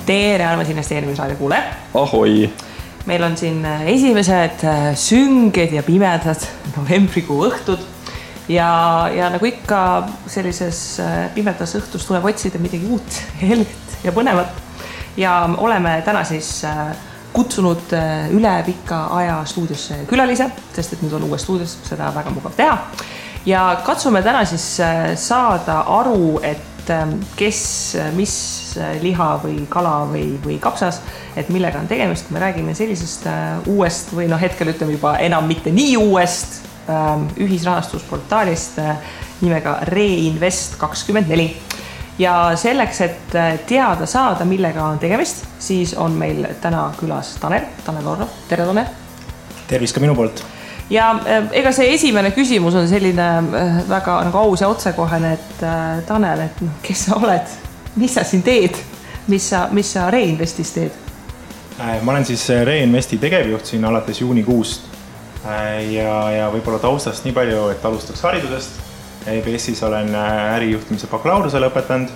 Tere, armas investeerimisraadio kuule. Ahoi! Meil on siin esimesed sünged ja pimedad novembrikuu õhtud ja nagu ikka sellises pimedas õhtus tuleb otsida midagi uut, helget ja põnevat. Ja oleme täna siis kutsunud üle pika aja stuudiosse külalise, sest et nüüd on uues stuudios, seda väga mugav teha. Ja katsume täna siis saada aru, et kes, mis liha või kala või kapsas, et millega on tegemist, kui me räägime sellisest uuest või hetkel ütleme juba enam mitte nii uuest ühisrahastusportaalist nimega Reinvest24. Ja selleks, et teada saada, millega on tegemist, siis on meil täna külas Tanel Orro. Tere, Tanel! Tervis ka minu poolt! Ja ega see esimene küsimus on selline väga nagu aus ja otsekohene, et Tanel, et kes sa oled, mis sa siin teed, mis sa Reinvestis teed? Ma olen siis Reinvesti tegevjuht siin alates juunikuust ja võib-olla taustast nii palju, et alustaks haridusest. EBS-is olen ärijuhtimise bakalaureuse lõpetanud.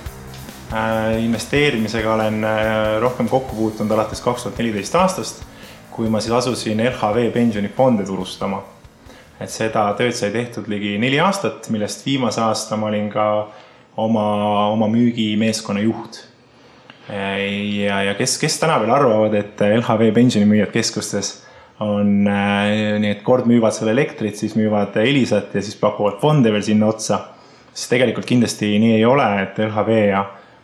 Investeerimisega olen rohkem kokku puutunud alates 2014 aastast, kui ma siis asusin LHV pensionifonde turustama. Et seda tööd sai tehtud ligi 4 aastat, millest viimase aasta ma olin ka oma müügimeeskonna juht. Ja kes täna veel arvavad, et LHV pensionimüüjad keskustes on nii, et kord müüvad selle elektrit, siis müüvad Elisat ja siis pakuvad fonde veel sinna otsa. Siis tegelikult kindlasti nii ei ole, et LHV ja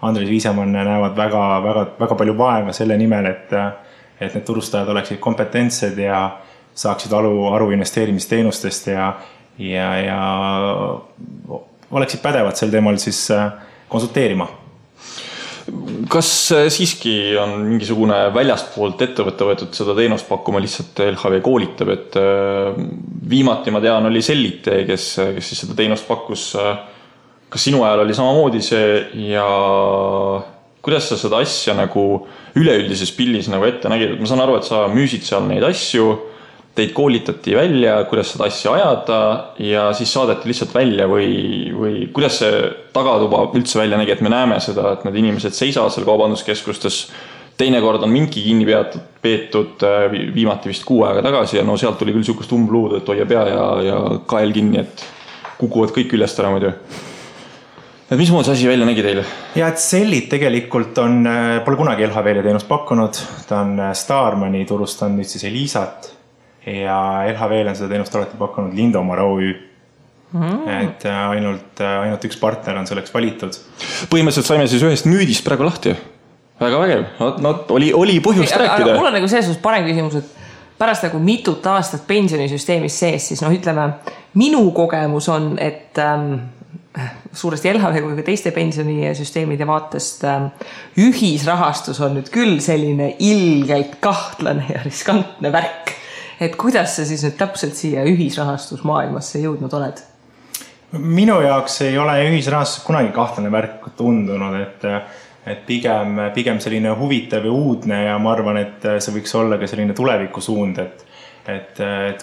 Andres Viisemann näevad väga palju vaeva selle nimel, et need turustajad oleksid kompetentsed ja saaksid aru investeerimisteenustest ja oleksid pädevad sel teemal siis konsulteerima. Kas siiski on mingisugune väljastpoolt ettevõtte võetud seda teenust pakkuma, lihtsalt LHV koolitab, et viimati ma tean oli Sellite, kes siis seda teenust pakkus. Kas sinu ajal oli samamoodi see ja kuidas sa seda asja nagu üleüldises pillis nagu ette nägid? Ma saan aru, et sa müüsid seal neid asju, teid koolitati välja, kuidas seda asja ajada ja siis saadeti lihtsalt välja või kuidas see tagatuba üldse välja nägi, et me näeme seda, et need inimesed seisavad seal kaubanduskeskustes. Teinekord on mingi kinni peetud viimati vist 6 aega tagasi ja sealt tuli küll sihukest umbluud, et hoia pea ja kael kinni, et kukuvad kõik üllest ära muidu. Et mis muud see asi välja nägi teile? Ja et Sellit tegelikult pole kunagi LHV-le teenust pakkunud. Ta on Starmani turustanud nüüd siis Elisat ja LHV-le on seda teenust alati pakkunud Lindomar OÜ. Et ainult üks partner on selleks valitud. Põhimõtteliselt saime siis ühest müüdist praegu lahti. Väga vägev. Oli põhjust rääkida. Aga mul on nagu selles parem küsimus, et pärast nagu mitut aastat pensionisüsteemis sees, siis ütleme, minu kogemus on, et suuresti LHV kui ka teiste pensionisüsteemide vaatest ühisrahastus on nüüd küll selline ilgelt kahtlane ja riskantne värk. Et kuidas sa siis nüüd täpselt siia ühisrahastusmaailmasse jõudnud oled? Minu jaoks ei ole ühisrahastus kunagi kahtlane värk tundunud, et pigem selline huvitav ja uudne ja ma arvan, et see võiks olla ka selline tuleviku suund, et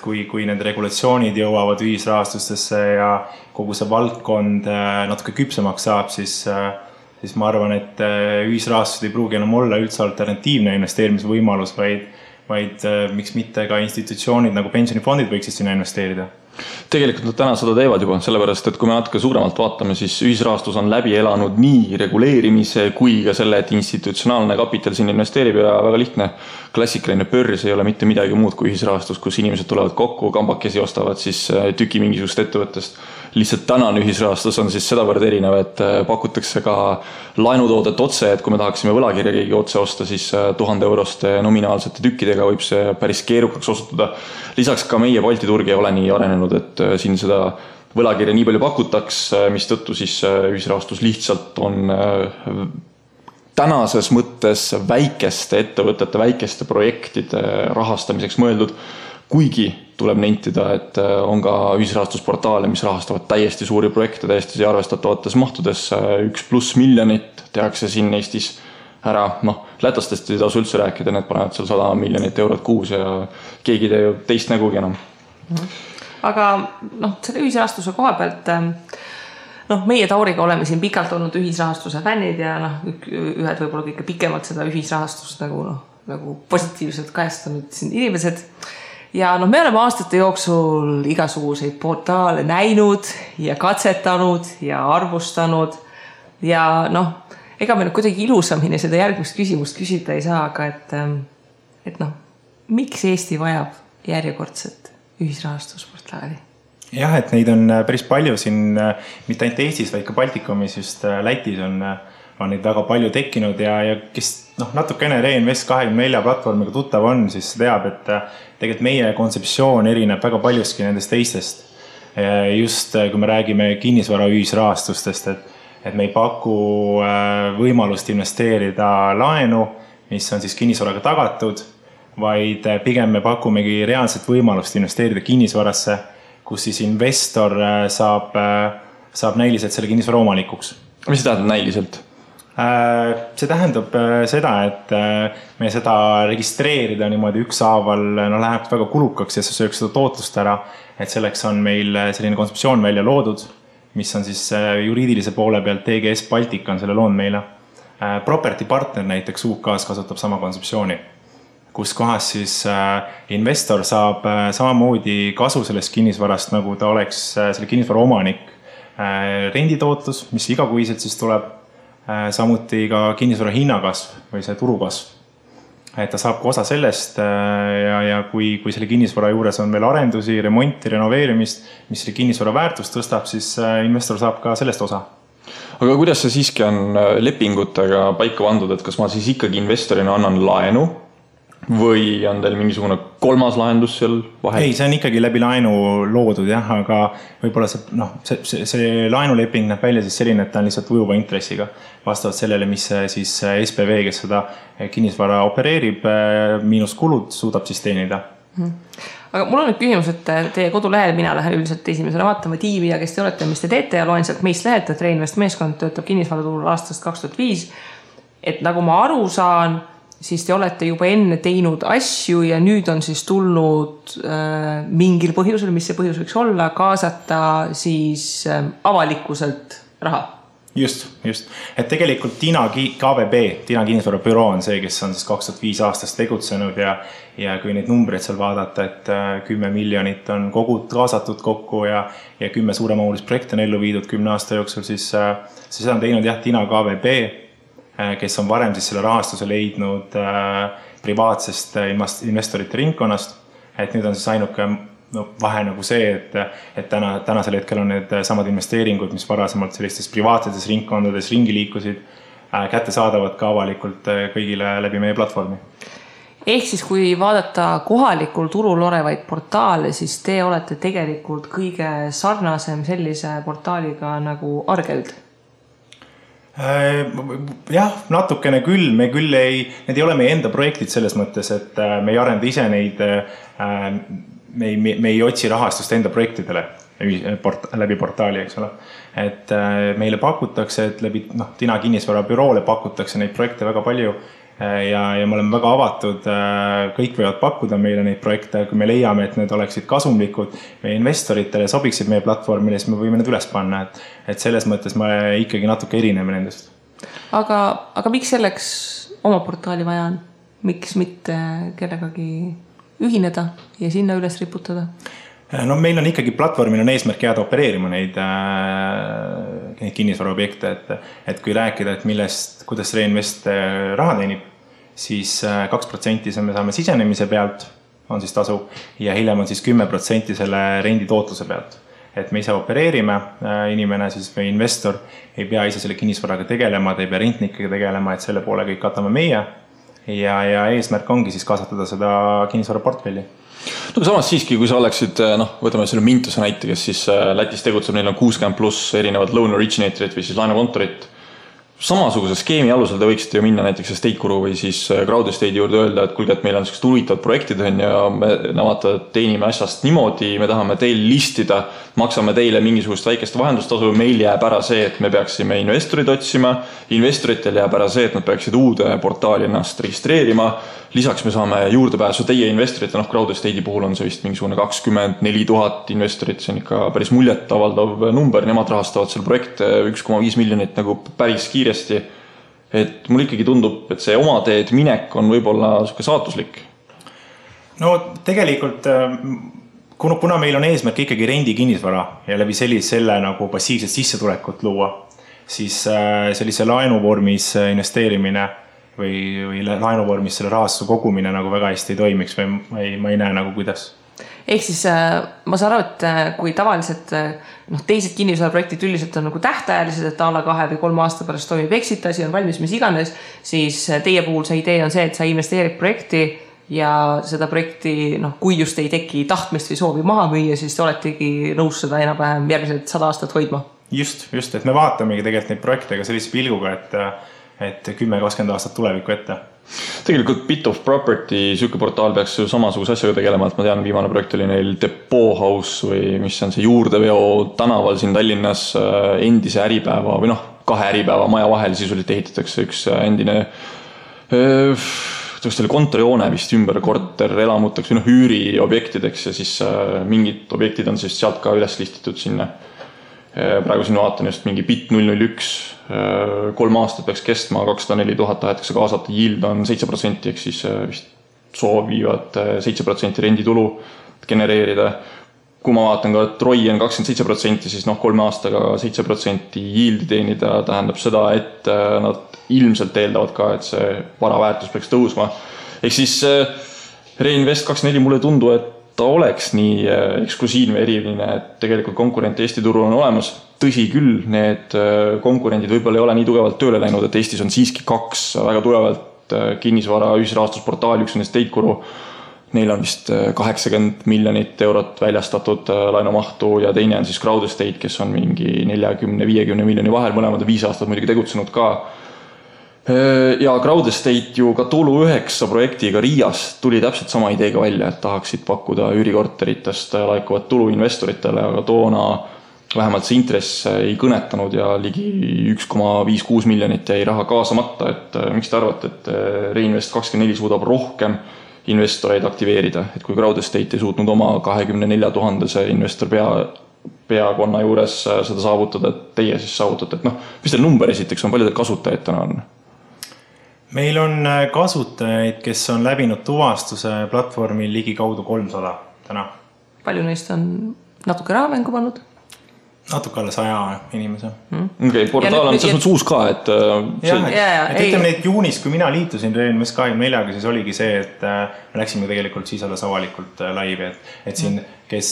kui need regulatsioonid jõuavad ühisrahastustesse ja kogu see valdkond natuke küpsemaks saab, siis ma arvan, et ühisrahastused ei pruugi enam olla üldse alternatiivne investeerimisvõimalus, vaid miks mitte ka institutsioonid nagu pensionifondid võiksid sinna investeerida. Tegelikult nad täna seda teevad juba, sellepärast, et kui me natuke suuremalt vaatame, siis ühisrahastus on läbi elanud nii reguleerimise kui ka selle, et institutsionaalne kapital siin investeerib ja väga lihtne. Klassikaline börs ei ole mitte midagi muud kui ühisrahastus, kus inimesed tulevad kokku, kambakesi ostavad siis tüki mingisugust ettevõttest. Lihtsalt tänane ühisrahastus on siis sedavõrd erinev, et pakutakse ka laenutoodet otse, et kui me tahaksime võlakirja keegi otse osta, siis 1000 euroste nominaalsete tükkidega võib see päris keerukaks osutuda. Lisaks ka meie Balti turg ei ole nii arenenud, et siin seda võlakirja nii palju pakutaks, mis tõttu siis ühisrahastus lihtsalt on tänases mõttes väikeste ettevõtete, väikeste projektide rahastamiseks mõeldud, kuigi tuleb nentida, et on ka ühisrahastusportaale, mis rahastavad täiesti suuri projekte, täiesti arvestatavates mahtudes 1+ miljonit tehakse siin Eestis ära. Lätastest ei tasu üldse rääkida, need panevad seal 100 miljonit eurot kuus ja keegi tee ju teist nägugi enam. Aga selle ühisrahastuse koha pealt meie Tauriga oleme siin pikalt olnud ühisrahastuse fännid ja ühed võib-olla kõige pikemalt seda ühisrahastust nagu positiivselt kajastanud siin inimesed. Ja me oleme aastate jooksul igasuguseid portaale näinud ja katsetanud ja arvustanud ja ega me kuidagi ilusamini seda järgmist küsimust küsida ei saa, aga et miks Eesti vajab järjekordset ühisrahastusportaali? Jah, et neid on päris palju siin, mitte ainult Eestis, vaid ka Baltikumis, just Lätis on neid väga palju tekkinud ja kes natukene Reinvest24 platvormiga tuttav on, siis teab, et tegelikult meie kontseptsioon erineb väga paljuski nendest teistest. Just kui me räägime kinnisvara ühisrahastustest, et me ei paku võimalust investeerida laenu, mis on siis kinnisvaraga tagatud, vaid pigem me pakumegi reaalset võimalust investeerida kinnisvarasse, kus siis investor saab näiliselt selle kinnisvara omanikuks. Mis see tähendab näiliselt? See tähendab seda, et me seda registreerida niimoodi ükshaaval läheb väga kulukaks ja see sööks seda tootlust ära, et selleks on meil selline kontseptsioon välja loodud, mis on siis juriidilise poole pealt TGS Baltic on selle loonud meile. Property Partner näiteks UK-s kasutab sama kontseptsiooni, kus kohas siis investor saab samamoodi kasu sellest kinnisvarast, nagu ta oleks selle kinnisvara omanik. Renditootlus, mis igakuiselt siis tuleb, samuti ka kinnisvara hinnakasv või see turukasv. Et ta saab ka osa sellest ja kui selle kinnisvara juures on veel arendusi, remonti, renoveerimist, mis selle kinnisvara väärtust tõstab, siis investor saab ka sellest osa. Aga kuidas see siiski on lepingutega paika pandud, et kas ma siis ikkagi investorina annan laenu või on teil mingisugune kolmas lahendus seal vahel? Ei, see on ikkagi läbi laenu loodud, jah, aga võib-olla see laenuleping näeb välja siis selline, et ta on lihtsalt ujuva intressiga vastavalt sellele, mis siis SPV, kes seda kinnisvara opereerib, miinus kulud suudab siis teenida. Aga mul on nüüd küsimus, et teie kodulehel mina lähen üldiselt esimesele vaatama tiimi ja kes te olete, mis te teete ja loen sealt meist lehet, et Reinvest meeskond töötab kinnisvaraturul aastast 2005. Et nagu ma aru saan, siis te olete juba enne teinud asju ja nüüd on siis tulnud mingil põhjusel, mis see põhjus võiks olla, kaasata siis avalikkuselt raha. Just. Et tegelikult Tina KVB, Tina kinnisvara büroo on see, kes on siis 2005 aastast tegutsenud ja kui neid numbreid seal vaadata, et 10 miljonit on kaasatud kokku ja 10 suuremahulist projekti on ellu viidud 10 aasta jooksul, siis seda on teinud Tina KVB, kes on varem siis selle rahastuse leidnud privaatsest investorite ringkonnast, et nüüd on siis ainuke vahe nagu see, et tänasel hetkel on need samad investeeringud, mis varasemalt sellistes privaatsetes ringkondades ringi liikusid, kätte saadavad ka avalikult kõigile läbi meie platvormi. Ehk siis kui vaadata kohalikul turul olevaid portaale, siis te olete tegelikult kõige sarnasem sellise portaaliga nagu Argeld? Jah, natukene küll, need ei ole meie enda projektid selles mõttes, et me ei arenda ise neid, me ei otsi rahastust enda projektidele läbi portaali, eks ole. Et meile pakutakse, et läbi Tina kinnisvara büroole pakutakse neid projekte väga palju ja me oleme väga avatud, kõik võivad pakkuda meile neid projekte, kui me leiame, et need oleksid kasumlikud meie investoritele, sobiksid meie platvormile, siis me võime need üles panna, et selles mõttes me ikkagi natuke erineme nendest. Aga miks selleks oma portaali vaja on? Miks mitte kellegagi ühineda ja sinna üles riputada? No meil on ikkagi platvormil on eesmärk jääda opereerima neid kinnisvaraobjekte, et kui rääkida, et kuidas Reinvest raha teenib, siis 2% me saame sisenemise pealt, on siis tasu, ja hiljem on siis 10% selle rendi tootluse pealt. Et me ise opereerime, inimene siis või investor ei pea ise selle kinnisvaraga tegelema, ta ei pea rentnikega tegelema, et selle poole kõik katame meie ja eesmärk ongi siis kasvatada seda kinnisvara portfelli. No samas siiski, kui sa oleksid, võtame selle Mintuse näite, kes siis Lätis tegutseb, neil on 60+ erinevad loan originatorit või siis laenukontorit. Samasuguse skeemi alusel te võiksite ju minna näiteks Estate-Guru või siis Crowd Estate'i juurde öelda, et kuulge, et meil on sellised huvitavad projektid ja me teenime asjast niimoodi, me tahame teil listida, maksame teile mingisugust väikest vahendustasu, meil jääb ära see, et me peaksime investorid otsima, investoritel jääb ära see, et nad peaksid uude portaali ennast registreerima, lisaks me saame juurdepääsu teie investorite, Crowd Estate'i puhul on see vist mingisugune 24 000 investorit, see on ikka päris muljetavaldav number, nemad rahastavad selle projekte 1,5 miljonit nagu päris kiiresti. Et mul ikkagi tundub, et see oma teed minek on võib-olla saatuslik. No tegelikult, kuna meil on eesmärk ikkagi rendi kinnisvara ja läbi selle nagu passiivset sissetulekut luua, siis sellise laenuvormis investeerimine või laenuvormis selle rahastuse kogumine nagu väga hästi ei toimiks või ma ei näe nagu kuidas. Ehk siis ma saan aru, et kui tavaliselt teised kinnisvaraprojektid üldiselt on nagu tähtajalised, et alla 2 või 3 aasta pärast toimib exit, asi on valmis, mis iganes, siis teie puhul see idee on see, et sa investeerid projekti ja seda projekti, kui just ei teki tahtmist või soovi maha müüa, siis te oletegi nõus seda enam-vähem järgmised 100 aastat hoidma. Just, et me vaatamegi tegelikult neid projekte ka sellise pilguga, et 10-20 aastat tulevikku ette. Tegelikult Bit of Property süke portaal peaks ju samasuguse asjaga tegelema, et ma tean, viimane projekt oli neil Depot House või mis on see juurdeveo tänaval siin Tallinnas endise äripäeva või 2 äripäeva maja vahel sisuliselt ehitatakse üks endine kontorihoone vist ümber korter elamuteks või üüriobjektideks ja siis mingid objektid on siis sealt ka üles listitud sinna. Praegu siin vaatan just mingi BIT 001, 3 aastat peaks kestma, 204 000 tahetakse kaasata, yield on 7%, ehk siis vist soovivad 7% renditulu genereerida. Kui ma vaatan ka, et ROI on 27%, siis 3 aastaga 7% yieldi teenida tähendab seda, et nad ilmselt eeldavad ka, et see vara väärtus peaks tõusma. Ehk siis Reinvest24 mulle tundu, et ta oleks nii eksklusiivne eriline, et tegelikult konkurent Eesti turul on olemas. Tõsi küll, need konkurendid võib-olla ei ole nii tugevalt tööle läinud, et Eestis on siiski 2 väga tugevalt kinnisvara ühisrahastusportaali, üks on Estate-Guru. Neil on vist 80 miljonit eurot väljastatud laenumahtu ja teine on siis Crowd Estate, kes on mingi 40-50 miljoni vahel, mõlemad 5 aastat muidugi tegutsenud ka. Ja Crowd Estate ju ka Tulu 9 projektiga Riias tuli täpselt sama ideega välja, et tahaksid pakkuda üürikorteritest laekuvat tulu investoritele, aga toona vähemalt see intress ei kõnetanud ja ligi 1,56 miljonit jäi raha kaasamata, et miks te arvate, et Reinvest24 suudab rohkem investoreid aktiveerida, et kui Crowd Estate ei suutnud oma 24 000 investor peakonna juures seda saavutada, et teie siis saavutate, et mis teil number esiteks on, palju teil kasutajaid täna on? Meil on kasutajaid, kes on läbinud tuvastuse platvormil ligi kaudu 300 täna. Palju neist on natuke rahamängu pannud? Natuke alla 100 inimese. Okay, portaal on selles uus ka, et ütleme, et juunis, kui mina liitusin Reinvest24, siis oligi see, et me läksime tegelikult siis alles avalikult laivi, et siin, kes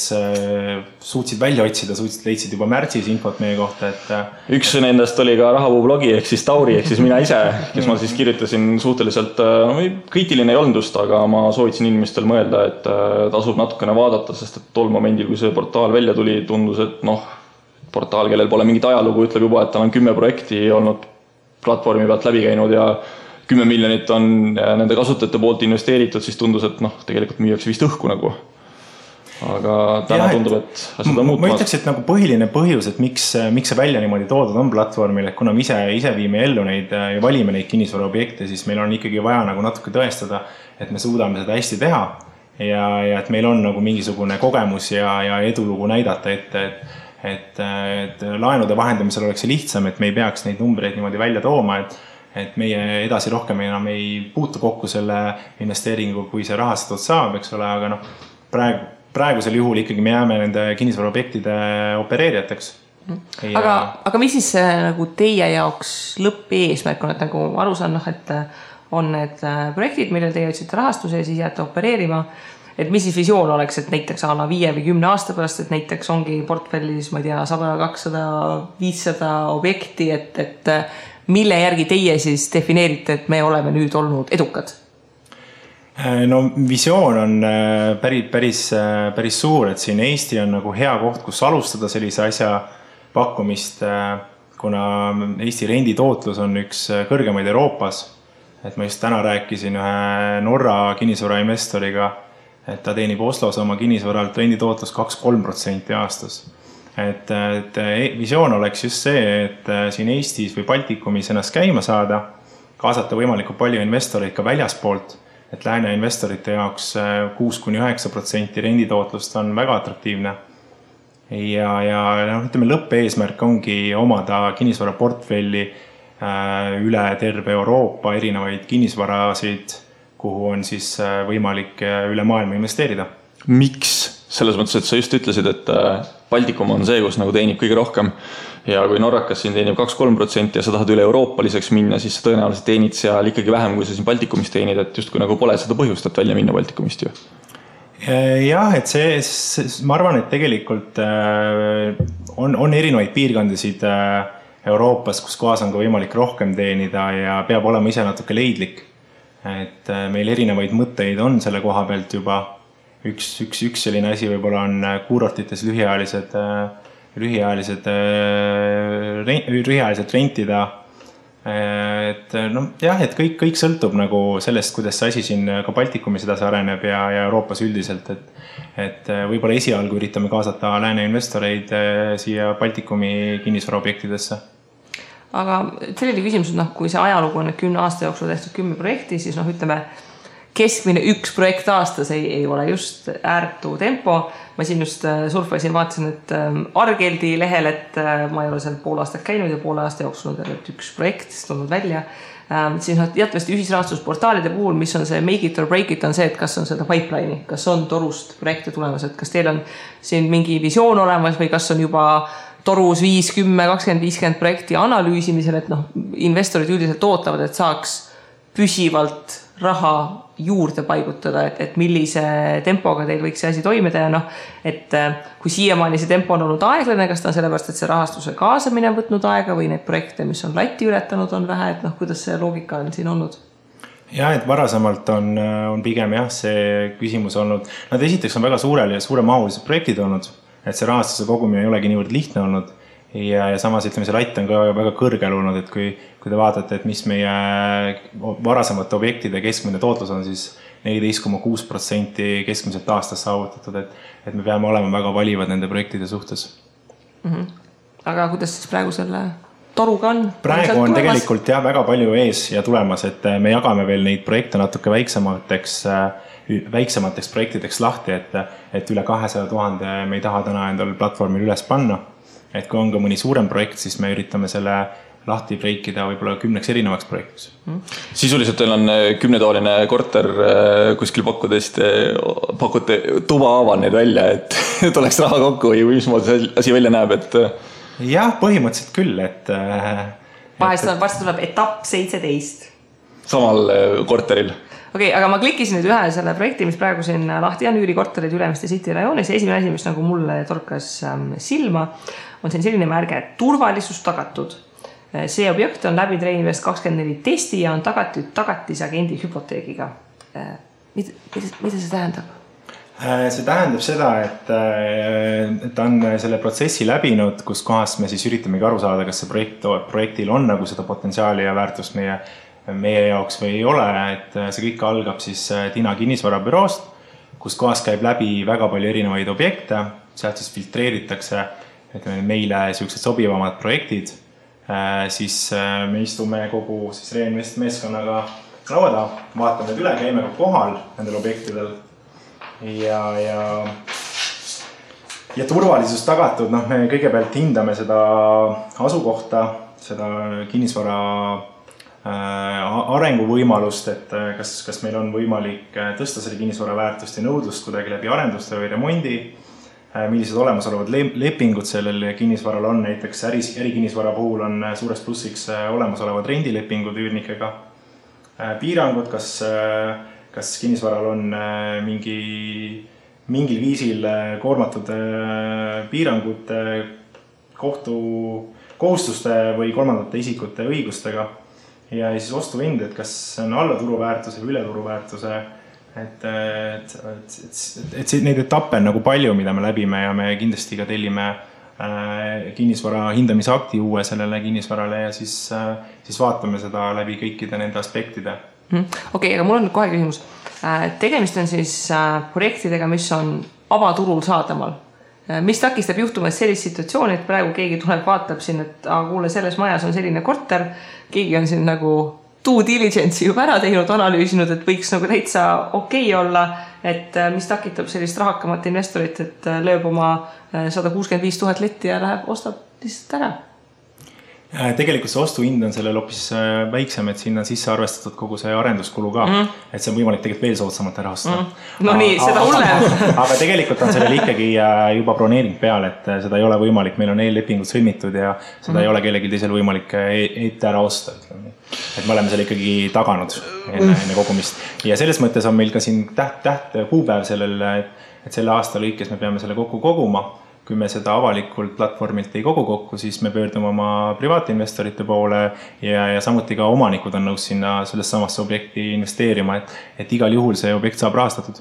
suutsid välja otsida, leidsid juba märtsis infot meie kohta, et üks nendest oli ka Rahavuu blogi, ehk siis Tauri, ehk siis mina ise, kes ma siis kirjutasin suhteliselt kriitiline ei olnud just, aga ma soovitasin inimestel mõelda, et tasub natukene vaadata, sest et tol momendil, kui see portaal välja tuli, tundus, et portaal, kellel pole mingit ajalugu, ütleb juba, et tal on 10 projekti olnud platvormi pealt läbi käinud ja 10 miljonit on nende kasutajate poolt investeeritud, siis tundus, et tegelikult müüakse vist õhku nagu. Aga täna tundub, et asjad on muutmas. Ma ütleks, et nagu põhiline põhjus, et miks see välja niimoodi toodud on platvormil, et kuna me ise viime ellu neid ja valime neid kinnisvaraobjekte, siis meil on ikkagi vaja nagu natuke tõestada, et me suudame seda hästi teha ja et meil on nagu mingisugune kogemus ja edulugu näidata ette, et laenude vahendamisel oleks see lihtsam, et me ei peaks neid numbreid niimoodi välja tooma, et meie edasi rohkem enam ei puutu kokku selle investeeringu, kui see rahastatud saab, eks ole, aga praegusel juhul ikkagi me jääme nende kinnisvaraobjektide opereerijateks. Aga mis siis nagu teie jaoks lõppeesmärk on, et nagu aru saan, et on need projektid, millel teie otsite rahastuse ja siis jääte opereerima, et mis siis visioon oleks, et näiteks alla 5 või 10 aasta pärast, et näiteks ongi portfellis, ma ei tea, 100, 200, 500 objekti, et mille järgi teie siis defineerite, et me oleme nüüd olnud edukad? No visioon on päris suur, et siin Eesti on nagu hea koht, kus alustada sellise asja pakkumist, kuna Eesti renditootlus on üks kõrgemaid Euroopas. Et ma just täna rääkisin ühe Norra kinnisvarainvestoriga, et ta teenib Oslos oma kinnisvaralt renditootlus 2-3% aastas. Et visioon oleks just see, et siin Eestis või Baltikumis ennast käima saada, kaasata võimalikult palju investoreid ka väljaspoolt, et lääne investorite jaoks 6-9% renditootlust on väga atraktiivne. Ja ütleme, lõppeesmärk ongi omada kinnisvaraportfelli üle terve Euroopa erinevaid kinnisvarasid, kuhu on siis võimalik üle maailma investeerida. Miks? Selles mõttes, et sa just ütlesid, et Baltikum on see, kus nagu teenib kõige rohkem ja kui Norrakas siin teenib 2-3% ja sa tahad üle euroopaliseks minna, siis sa tõenäoliselt teenid seal ikkagi vähem, kui sa siin Baltikumist teenid, et just kui nagu pole seda põhjust, et välja minna Baltikumist ju. Jah, et ma arvan, et tegelikult on erinevaid piirkondasid Euroopas, kus kohas on ka võimalik rohkem teenida ja peab olema ise natuke leidlik. Et meil erinevaid mõtteid on selle koha pealt juba. Üks selline asi võib-olla on kuurortites lühiajaliselt rentida. Et kõik sõltub nagu sellest, kuidas see asi siin ka Baltikumis edasi areneb ja Euroopas üldiselt. Et võib-olla esialgu üritame kaasata lääne investoreid siia Baltikumi kinnisvaraobjektidesse. Aga selline küsimus, kui see ajalugu on 10 aasta jooksul tehtud 10 projekti, siis ütleme, keskmine 1 projekt aastas ei ole just ääretu tempo. Ma siin just surfasin, vaatasin, et Argeldi lehel, et ma ei ole seal pool aastat käinud ja poole aasta jooksul on 1 projekt tulnud välja. Siis jätvasti ühisrahastusportaalide puhul, mis on see make it or break it, on see, et kas on seda pipeline'i, kas on torust projekte tulemas, et kas teil on siin mingi visioon olemas või kas on juba torus 5, 10, 20, 50 projekti analüüsimisel, et investorid üldiselt ootavad, et saaks püsivalt raha juurde paigutada, et millise tempoga teil võiks see asi toimida ja et kui siiamaani see tempo on olnud aeglane, kas ta on sellepärast, et see rahastuse kaasamine on võtnud aega või neid projekte, mis on latti ületanud, on vähe, et kuidas see loogika on siin olnud? Ja, et varasemalt on pigem see küsimus olnud, nad esiteks on väga suuremahulised projektid olnud, et see rahastuse kogumine ei olegi niivõrd lihtne olnud ja samas ütleme, see latt on ka väga kõrgel olnud, et kui te vaatate, et mis meie varasemate objektide keskmine tootlus on, siis 14,6% keskmiselt aastas saavutatud, et me peame olema väga valivad nende projektide suhtes. Aga kuidas siis praegu selle toruga on? Praegu on tegelikult väga palju ees ja tulemas, et me jagame veel neid projekte natuke väiksemateks projektideks lahti, et üle 200 000 me ei taha täna endal platvormil üles panna. Et kui on ka mõni suurem projekt, siis me üritame selle lahti breikida võib-olla 10 erinevaks projektiks. Sisuliselt teil on 10-toaline korter kuskil pakute tuba aaval neid välja, et oleks raha kokku või mismoodi asi välja näeb, et... Jah, põhimõtteliselt küll, et... Varsti tuleb etapp 17. Samal korteril. Okei, aga ma klikkisin nüüd ühe selle projekti, mis praegu siin lahti on üürikorterid Ülemiste City rajoonis. Esimene asi, mis nagu mulle torkas silma, on siin selline märge, et turvalisus tagatud. See objekt on läbi Treinvest 24 testi ja on tagatud tagatisagendi hüpoteegiga. Mida see tähendab? See tähendab seda, et on selle protsessi läbinud, kus kohast me siis üritamegi aru saada, kas see projektil on nagu seda potentsiaali ja väärtust meie jaoks või ei ole, et see kõik algab siis Tina kinnisvarabüroost, kus kohas käib läbi väga palju erinevaid objekte, sealt siis filtreeritakse meile sellised sobivamad projektid, siis me istume kogu siis Reinvest meeskonnaga lauada, vaatame need üle, käime kohal nendel objektidel ja turvalisus tagatud, me kõigepealt hindame seda asukohta, seda kinnisvara arenguvõimalust, et kas meil on võimalik tõsta selle kinnisvara väärtust ja nõudlust kuidagi läbi arenduste või remondi, millised olemasolevad lepingud sellel kinnisvaral on, näiteks ärikinnisvara puhul on suureks plussiks olemasolevad rendilepingud üürnikega, piirangud, kas kinnisvaral on mingil viisil koormatud piirangud kohustuste või kolmandate isikute õigustega ja siis ostuhind, et kas on alla turuväärtuse või üle turuväärtuse, et neid etappe on nagu palju, mida me läbime ja me kindlasti ka tellime kinnisvara hindamisakti uue sellele kinnisvarale ja siis vaatame seda läbi kõikide nende aspektide. Okei, aga mul on kohe küsimus. Tegemist on siis projektidega, mis on avaturul saadamal. Mis takistab juhtumas sellist situatsiooni, et praegu keegi tuleb, vaatab siin, et kuule, selles majas on selline korter, keegi on siin nagu due diligence'i juba ära teinud, analüüsinud, et võiks nagu täitsa okei olla, et mis takitab sellist rahakamat investorit, et lööb oma 165 000 letti ja läheb, ostab lihtsalt ära. Tegelikult see ostuhind on sellel hoopis väiksem, et sinna on sisse arvestatud kogu see arenduskulu ka, et see on võimalik tegelikult veel soodsamalt ära osta. No nii, seda hullem. Aga tegelikult on sellel ikkagi juba broneering peal, et seda ei ole võimalik, meil on eellepingud sõlmitud ja seda ei ole kellelgi teisel võimalik ette ära osta. Et me oleme selle ikkagi taganud enne kogumist. Ja selles mõttes on meil ka siin täht kuupäev sellel, et selle aasta lõikes me peame selle kokku koguma. Kui me seda avalikult platvormilt ei kogu kokku, siis me pöördume oma privaatinvestorite poole ja samuti ka omanikud on nõus sinna sellest samasse objekti investeerima, et igal juhul see objekt saab rahastatud.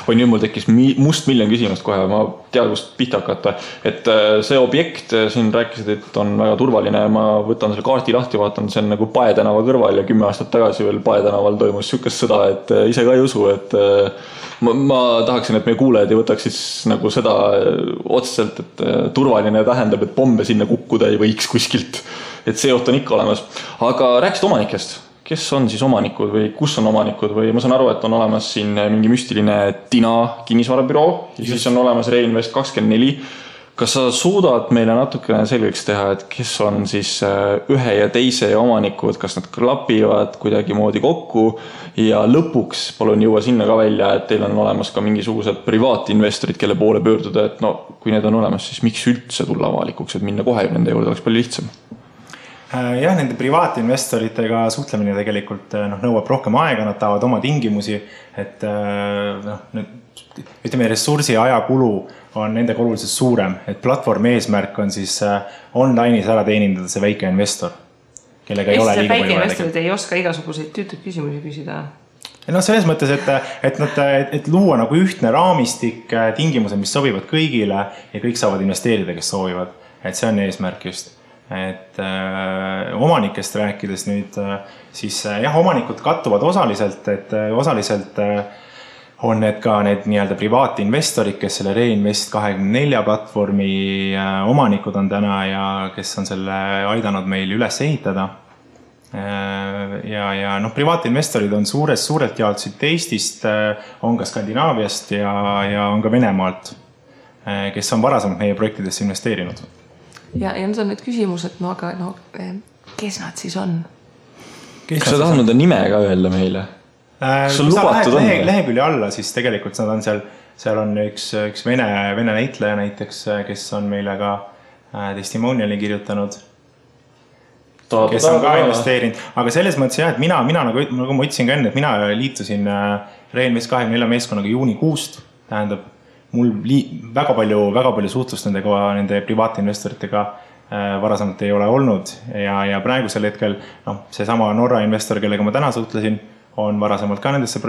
Oi, nüüd mul tekkis must miljon küsimust kohe, ma tean, kust pihta hakata. Et see objekt, siin rääkisid, et on väga turvaline, ma võtan selle kaarti lahti, vaatan, see on nagu Pae tänava kõrval ja 10 aastat tagasi veel Pae tänaval toimus sükest sõda, et ise ka ei usu, et ma tahaksin, et meie kuulajad ei võtaks siis nagu seda otseselt, et turvaline tähendab, et pombe sinna kukkuda ei võiks kuskilt, et see oht on ikka olemas. Aga rääkisid omanikest, kes on siis omanikud või kus on omanikud või ma saan aru, et on olemas siin mingi müstiline Tina kinnisvarabüroo ja siis on olemas Reinvest 24. Kas sa suudad meile natukene selgeks teha, et kes on siis ühe ja teise omanikud, kas nad klapivad kuidagi moodi kokku ja lõpuks palun jõua sinna ka välja, et teil on olemas ka mingisugused privaatinvestorid, kelle poole pöörduda, et no, kui need on olemas, siis miks üldse tulla avalikuks, et minna kohe nende juurde oleks palju lihtsam? Jah, nende privaatinvestoritega suhtlemine tegelikult nõuab rohkem aega, nad tahavad oma tingimusi, et ütleme, ressursi ja ajakulu on nendega oluliselt suurem, et platvormi eesmärk on siis online'is ära teenindada see väike investor, kellega ei ole liiga palju. Väike investorid ei oska igasuguseid tüütud küsimusi küsida. No selles mõttes, et luua nagu ühtne raamistik, tingimused, mis sobivad kõigile ja kõik saavad investeerida, kes soovivad, et see on eesmärk just. Et omanikest rääkides nüüd, siis jah, omanikud kattuvad osaliselt, et osaliselt on need ka need nii-öelda privaatinvestorid, kes selle Reinvest 24 platvormi omanikud on täna ja kes on selle aidanud meil üles ehitada. Ja privaatinvestorid on suurelt jaolt siit Eestist, on ka Skandinaaviast ja on ka Venemaalt, kes on varasemalt meie projektidesse investeerinud. Ja nüüd on need küsimused, aga kes nad siis on? Kas sa tahad nende nime ka öelda meile? Kas on lubatud on? Lehekülje alla, siis tegelikult nad on seal on üks vene näitleja näiteks, kes on meile ka testimoniali kirjutanud, kes on ka investeerinud. Aga selles mõttes jah, et mina nagu ma ütlesin ka enne, et mina liitusin Reinvest 24 meeskonnaga juunikuust, tähendab, mul väga palju suhtlust nende privaatinvestoritega varasemalt ei ole olnud ja praegusel hetkel see sama Norra investor, kellega ma täna suhtlesin, on varasemalt ka nendesse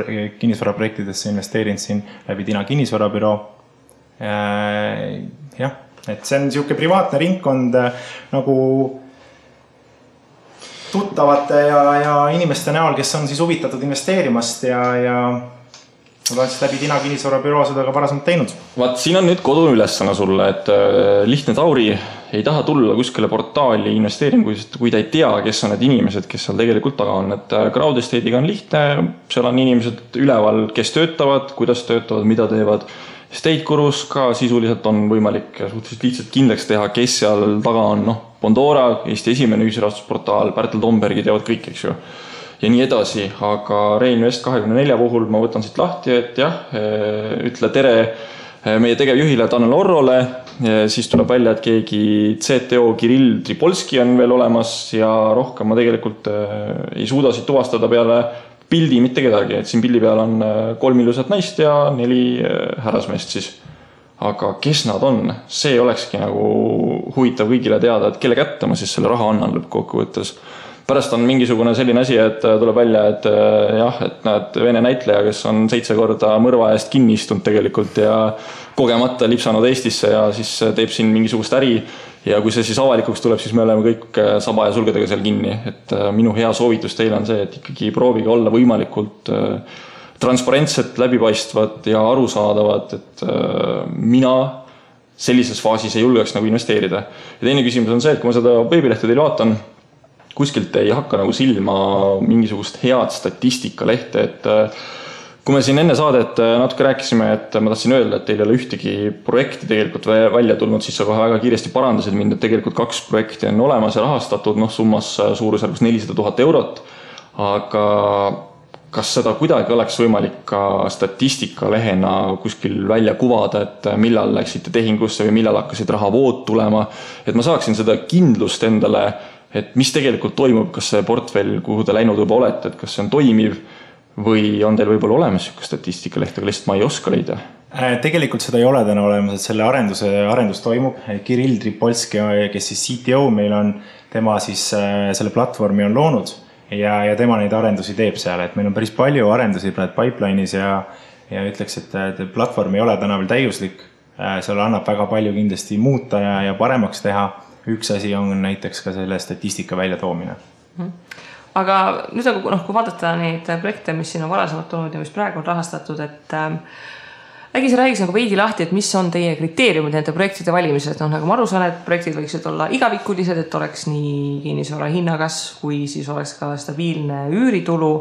kinnisvaraprojektidesse investeerinud siin läbi Tina kinnisvarabüroo. Jah, et see on niisugune privaatne ringkond nagu tuttavate ja inimeste näol, kes on siis huvitatud investeerimast ja ma olen siis läbi Tina kinnisvarabüroo seda ka varasemalt teinud. Vaat, siin on nüüd kodu ülesana sulle, et lihtne Tauri ei taha tulla kuskile portaali investeeringuid, kui ta ei tea, kes on need inimesed, kes seal tegelikult taga on. Et Crowd Estate'iga on lihtne, seal on inimesed üleval, kes töötavad, kuidas töötavad, mida teevad. Estate-kurus ka sisuliselt on võimalik suhteliselt lihtsalt kindlaks teha, kes seal taga on. Bondora, Eesti esimene ühisrahastusportaal, Pärtel Tombergi teevad kõik, eks ju. Ja nii edasi, aga Reinvest 24 puhul ma võtan siit lahti, et jah, ütle tere meie tegevjuhile Tanel Orrole, siis tuleb välja, et keegi CTO Kirill Tripolski on veel olemas ja rohkem ma tegelikult ei suuda siit tuvastada peale pildi mitte kedagi, et siin pildi peal on 3 ilusat naist ja 4 härrasmeest siis. Aga kes nad on? See olekski nagu huvitav kõigile teada, et kelle kätte ma siis selle raha annan lõppkokkuvõttes. Pärast on mingisugune selline asi, et tuleb välja, et jah, et näed vene näitleja, kes on 7 korda mõrva eest kinni istunud tegelikult ja kogemata lipsanud Eestisse ja siis teeb siin mingisugust äri ja kui see siis avalikuks tuleb, siis me oleme kõik saba ja sulgedega seal kinni. Et minu hea soovitus teile on see, et ikkagi proovige olla võimalikult transparentset, läbipaistvat ja arusaadavat, et mina sellises faasis ei julgeks nagu investeerida. Ja teine küsimus on see, et kui ma seda veebilehte teil vaatan, kuskilt ei hakka nagu silma mingisugust head statistikalehte, et kui me siin enne saadet natuke rääkisime, et ma tahtsin öelda, et teil ei ole ühtegi projekti tegelikult välja tulnud, siis sa kohe väga kiiresti parandasid mind, et tegelikult 2 projekti on olemas ja rahastatud, summas suurusjärgus 400 000 eurot. Aga kas seda kuidagi oleks võimalik ka statistikalehena kuskil välja kuvada, et millal läksite tehingusse või millal hakkasid rahavood tulema, et ma saaksin seda kindlust endale, et mis tegelikult toimub, kas see portfell, kuhu te läinud juba olete, et kas see on toimiv, või on teil võib-olla olemas selline statistikaleht, aga lihtsalt ma ei oska leida? Tegelikult seda ei ole täna olemas, et selle arendus toimub. Kirill Tripolski, kes siis CTO meil on, tema siis selle platvormi on loonud ja tema neid arendusi teeb seal. Et meil on päris palju arendusi pipeline'is ja ütleks, et platvorm ei ole täna veel täiuslik. Seal annab väga palju kindlasti muuta ja paremaks teha. Üks asi on näiteks ka selle statistika välja toomine. Aga nüüd kui vaadata neid projekte, mis siin on varasemalt olnud ja mis praegu on rahastatud, et äkki sa räägiks veidi lahti, et mis on teie kriteeriumid nende projektide valimised? Nagu ma aru saan, et projektid võiksid olla igavikulised, et oleks nii kinnisvara hinnakas, kui siis oleks ka stabiilne üüritulu.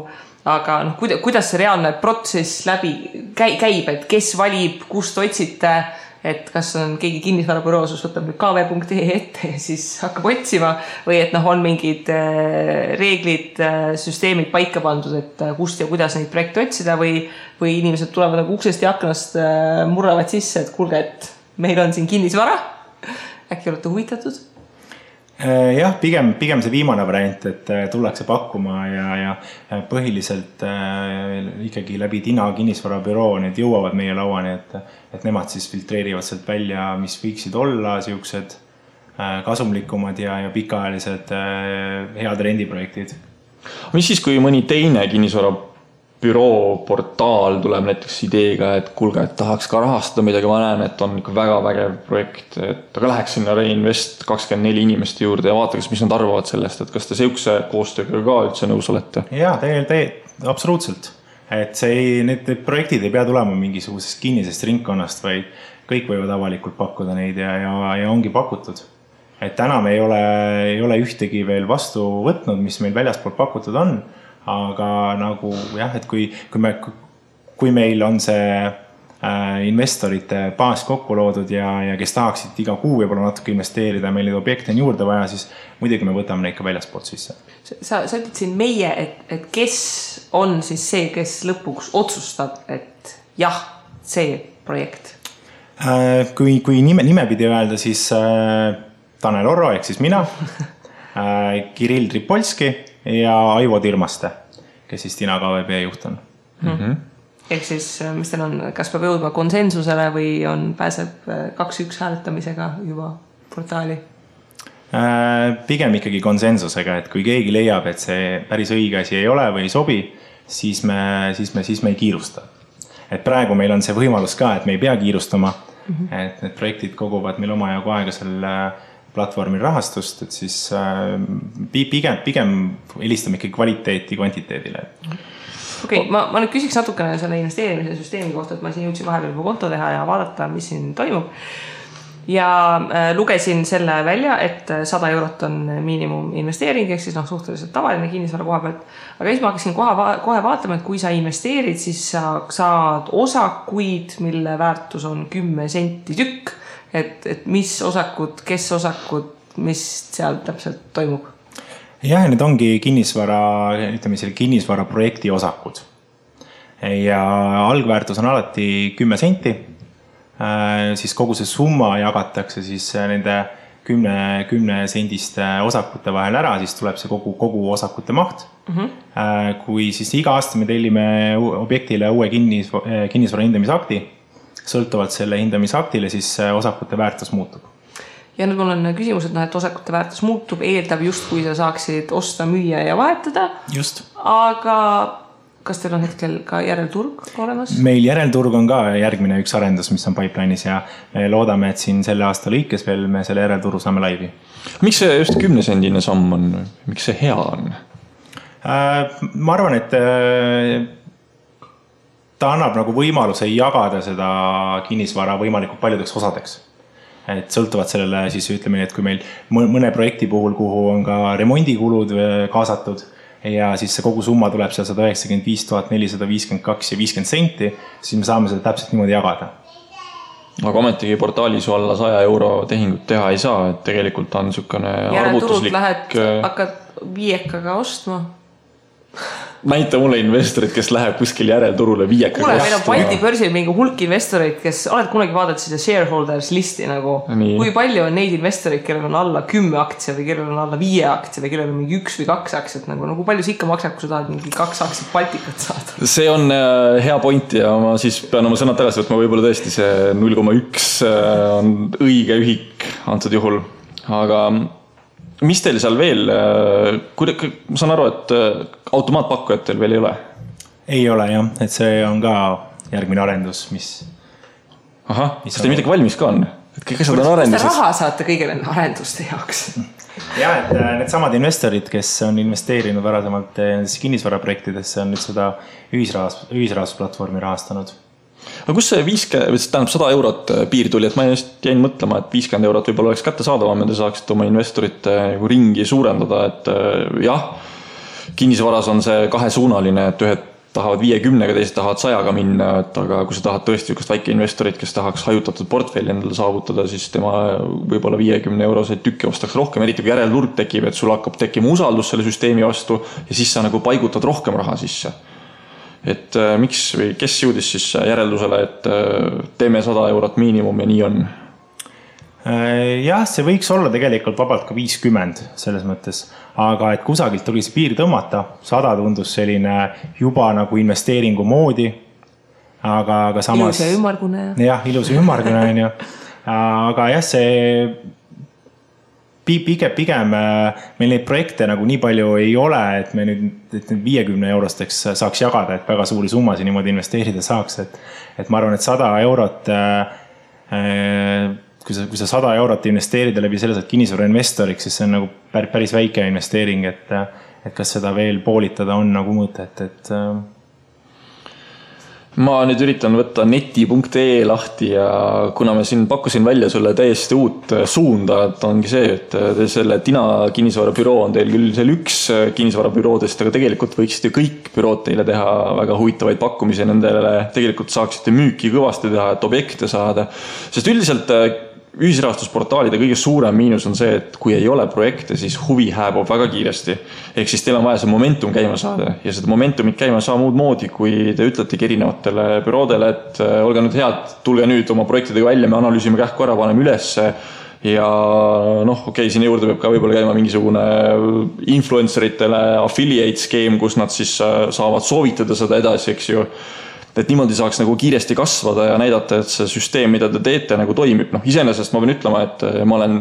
Aga kuidas see reaalne protsess läbi käib, et kes valib, kust otsite, et kas on keegi kinnisvarabüroos, võtab nüüd kv.ee ette ja siis hakkab otsima või et on mingid reeglid, süsteemid paika pandud, et kust ja kuidas neid projekte otsida või inimesed tulevad uksest ja aknast murravad sisse, et kuulge, et meil on siin kinnisvara, äkki olete huvitatud? Jah, pigem see viimane variant, et tullakse pakkuma ja põhiliselt ikkagi läbi Tina kinnisvarabüroo need jõuavad meie lauani, et nemad siis filtreerivad sealt välja, mis võiksid olla siuksed kasumlikumad ja pikaajalised head rendiprojektid. Mis siis, kui mõni teine kinnisvarabüroo portaal tuleb näiteks ideega, et kuulge, et tahaks ka rahastada midagi, ma näen, et on ikka väga vägev projekt, et aga läheks sinna Reinvest 24 inimeste juurde ja vaataks, mis nad arvavad sellest, et kas te siukse koostööga ka üldse nõus olete? Jaa, absoluutselt. Et need projektid ei pea tulema mingisugusest kinnisest ringkonnast, vaid kõik võivad avalikult pakkuda neid ja ongi pakutud. Et täna me ei ole ühtegi veel vastu võtnud, mis meil väljaspool pakutud on, aga nagu jah, et kui meil on see investorite baas kokku loodud ja kes tahaksid iga kuu võib-olla natuke investeerida, meil neid objekte on juurde vaja, siis muidugi me võtame neid ka väljaspoolt sisse. Sa ütled siin meie, et kes on siis see, kes lõpuks otsustab, et jah, see projekt? Kui nimepidi öelda, siis Tanel Orro, ehk siis mina, Kirill Tripolski ja Aivo Tirmaste, kes siis Tina KVB juht on. Ehk siis, mis teil on, kas peab jõudma konsensusele või pääseb 2-1 hääletamisega juba portaali? Pigem ikkagi konsensusega, et kui keegi leiab, et see päris õige asi ei ole või ei sobi, siis me ei kiirusta. Et praegu meil on see võimalus ka, et me ei pea kiirustama, et need projektid koguvad meil omajagu aega selle platvormil rahastust, et siis pigem helistame ikkagi kvaliteeti kvantiteedile. Okei, ma nüüd küsiks natukene selle investeerimise süsteemi kohta, et ma siin jõudsin vahepeal juba konto teha ja vaadata, mis siin toimub. Ja lugesin selle välja, et 100 eurot on miinimum investeering, ehk siis suhteliselt tavaline kinnisvara koha pealt. Aga siis ma hakkasin kohe vaatama, et kui sa investeerid, siis sa saad osakuid, mille väärtus on 10 senti tükk. Et mis osakud, kes osakud, mis seal täpselt toimub? Jah, need ongi kinnisvara projekti osakud. Ja algväärtus on alati 10 senti. Siis kogu see summa jagatakse siis nende 10 sendiste osakute vahel ära, siis tuleb see kogu osakute maht. Kui siis iga aasta me tellime objektile uue kinnisvara hindamisakti, sõltuvalt selle hindamisaktile, siis osakute väärtus muutub. Ja nüüd mul on küsimus, et osakute väärtus muutub, eeldab just, kui sa saaksid osta, müüa ja vahetada. Just. Aga kas teil on hetkel ka järelturg olemas? Meil järelturg on ka järgmine üks arendus, mis on pipeline'is ja me loodame, et siin selle aasta lõikes veel me selle järelturu saame laivi. Miks see just 10-sendine samm on? Miks see hea on? Ma arvan, et ta annab nagu võimaluse jagada seda kinnisvara võimalikult paljudeks osadeks. et sõltuvad sellele siis ütleme nii, et kui meil mõne projekti puhul, kuhu on ka remondikulud kaasatud ja siis see kogu summa tuleb seal 195 452 ja 50 senti, siis me saame seda täpselt niimoodi jagada. Aga ometigi portaalis alla 100 euro tehingut teha ei saa, et tegelikult on niisugune arvutuslik... lähed, hakkad viiekaga ostma. Näita mulle investorid, kes läheb kuskil järelturule viiekaga ostma. Meil on Balti börsil mingi hulk investoreid, kes oled kunagi vaadanud seda shareholders listi nagu, kui palju on neid investoreid, kellel on alla 10 aktsia või kellel on alla 5 aktsia või kellel on mingi 1 või 2 aktsiat, nagu palju see ikka maksab, kui sa tahad mingi 2 aktsiat Baltikat saada? See on hea point ja ma siis pean oma sõnad tagasi võtma, võib-olla tõesti see 0,1 on õige ühik antud juhul, aga mis teil seal veel, ma saan aru, et automaatpakkujad teil veel ei ole? Ei ole jah, et see on ka järgmine arendus, mis... Ahah, kas teil midagi valmis ka on? Et kõik asjad on arenduses? Kas te raha saate kõige nende arenduste jaoks? Ja, et need samad investorid, kes on investeerinud varasemalt kinnisvaraprojektidesse, on nüüd seda ühisrahastusplatvormi rahastanud. Aga kus see 100 eurot piir tuli, et ma just jäin mõtlema, et 50 eurot võib-olla oleks kätte saadavam, et te saaksite oma investorite ringi suurendada, et jah, kinnisvaras on see kahesuunaline, et ühed tahavad 50-ga, teised tahavad 100-ga minna, et aga kui sa tahad tõesti ükest väike investorit, kes tahaks hajutatud portfelli endale saavutada, siis tema võib-olla 50 euroseid tükki ostaks rohkem, eriti kui järelturg tekib, et sul hakkab tekkima usaldus selle süsteemi vastu ja siis sa nagu paigutad rohkem raha sisse. Et miks või kes jõudis siis järeldusele, et teeme 100 eurot miinimum ja nii on? Jah, see võiks olla tegelikult vabalt ka 50 selles mõttes, aga et kusagilt tuli see piir tõmmata, 100 tundus selline juba nagu investeeringu moodi, aga samas... Ilus ja ümmargune. Jah, ilus ja ümmargune on ju. Aga jah, see pigem meil neid projekte nagu nii palju ei ole, et me nüüd 50 eurosteks saaks jagada, et väga suuri summasid niimoodi investeerida saaks, et ma arvan, et 100 eurot kui sa 100 eurot investeerida läbi selle saad kinnisvara investoriks, siis see on nagu päris väike investeering, et kas seda veel poolitada on nagu mõtet, et ma nüüd üritan võtta neti.ee lahti ja kuna ma siin pakkusin välja sulle täiesti uut suunda, et ongi see, et selle Tina kinnisvarabüroo on teil küll seal üks kinnisvarabüroodest, aga tegelikult võiksite kõik bürood teile teha väga huvitavaid pakkumisi nendele, tegelikult saaksite müüki kõvasti teha, et objekte saada, sest üldiselt ühisrahastusportaalide kõige suurem miinus on see, et kui ei ole projekte, siis huvi hääbub väga kiiresti. Ehk siis teil on vaja see momentum käima saada ja seda momentumit käima saa muud moodi, kui te ütletegi erinevatele büroodele, et olge nüüd head, tulge nüüd oma projektidega välja, me analüüsime kähku ära, paneme ülesse ja okei, siin juurde peab ka võib-olla käima mingisugune influenceritele affiliate skeem, kus nad siis saavad soovitada seda edasi, eks ju. Et niimoodi saaks nagu kiiresti kasvada ja näidata, et see süsteem, mida te teete, nagu toimib. Iseenesest ma pean ütlema, et ma olen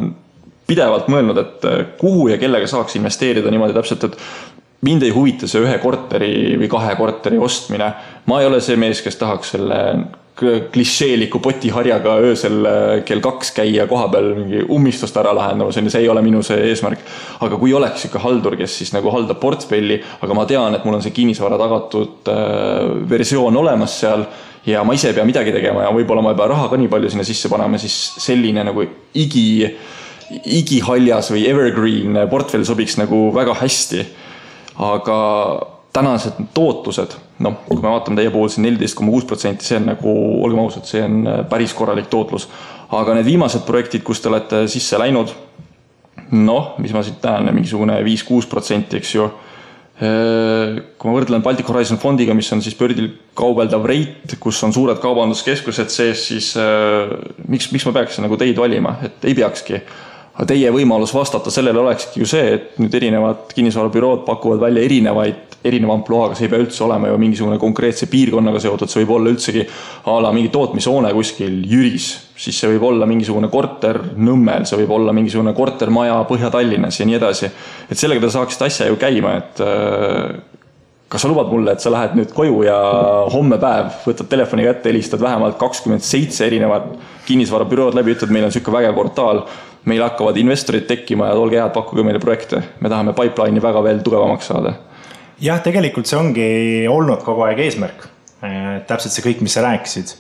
pidevalt mõelnud, et kuhu ja kellega saaks investeerida niimoodi täpselt, et mind ei huvita see 1 korteri või 2 korteri ostmine. Ma ei ole see mees, kes tahaks selle klišeeliku potiharjaga öösel kell 2 käia koha peal mingi ummistust ära lahendama, see ei ole minu see eesmärk. Aga kui oleks ikka haldur, kes siis nagu haldab portfelli, aga ma tean, et mul on see kinnisvara tagatud versioon olemas seal ja ma ise ei pea midagi tegema ja võib-olla ma ei pea raha ka nii palju sinna sisse panema, siis selline nagu igihaljas või evergreen portfell sobiks nagu väga hästi. Aga tänased tootlused, kui me vaatame teie puhul siin 14,6%, see on nagu, olgem ausad, see on päris korralik tootlus. Aga need viimased projektid, kus te olete sisse läinud, mis ma siit näen, mingisugune 5-6%, eks ju. Kui ma võrdlen Baltic Horizon fondiga, mis on siis bördil kaubeldav reit, kus on suured kaubanduskeskused sees, siis miks ma peaks nagu teid valima, et ei peakski. Aga teie võimalus vastata sellele olekski ju see, et nüüd erinevad kinnisvarabürood pakuvad välja erineva ampluaaga, see ei pea üldse olema ju mingisugune konkreetse piirkonnaga seotud, see võib olla üldsegi mingi tootmishoone kuskil Jüris, siis see võib olla mingisugune korter Nõmmel, see võib olla mingisugune kortermaja Põhja-Tallinnas ja nii edasi. Et sellega te saaksite asja ju käima, et kas sa lubad mulle, et sa lähed nüüd koju ja homme päev võtad telefoni kätte, helistad vähemalt 27 erinevat kinnisvarabürood läbi, ütled, meil on selline vägev portaal, meil hakkavad investorid tekkima ja olge head, pakkuge meile projekte. Me tahame pipeline'i väga veel tugevamaks saada. Jah, tegelikult see ongi olnud kogu aeg eesmärk. Täpselt see kõik, mis sa rääkisid.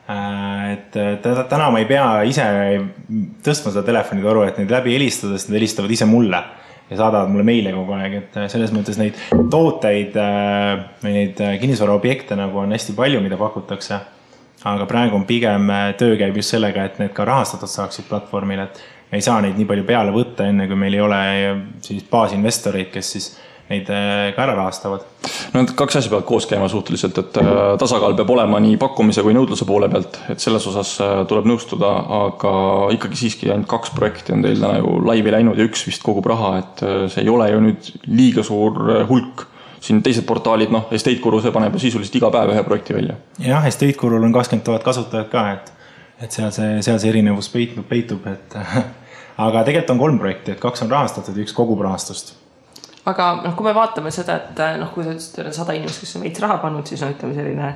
Et täna ma ei pea ise tõstma seda telefonitoru, et neid läbi helistada, sest nad helistavad ise mulle ja saadavad mulle meile kogu aeg, et selles mõttes neid tooteid või neid kinnisvaraobjekte nagu on hästi palju, mida pakutakse. Aga praegu on pigem töö käib just sellega, et need ka rahastatud saaksid platvormil, et me ei saa neid nii palju peale võtta, enne kui meil ei ole siis baasinvestoreid, kes siis neid ka ära rahastavad. No need kaks asja peavad koos käima suhteliselt, et tasakaal peab olema nii pakkumise kui nõudluse poole pealt, et selles osas tuleb nõustuda, aga ikkagi siiski ainult 2 projekti on teil täna ju laivi läinud ja 1 vist kogub raha, et see ei ole ju nüüd liiga suur hulk. Siin teised portaalid, Estate Guru, see paneb sisuliselt iga päev 1 projekti välja. Jah, Estate Gurul on 20 000 kasutajat ka, et seal see erinevus peitub, et aga tegelikult on 3 projekti, et 2 on rahastatud ja 1 kogub rahastust. Aga kui me vaatame seda, et kui te ütlesite 100 inimest, kes on veits raha pannud, siis ütleme selline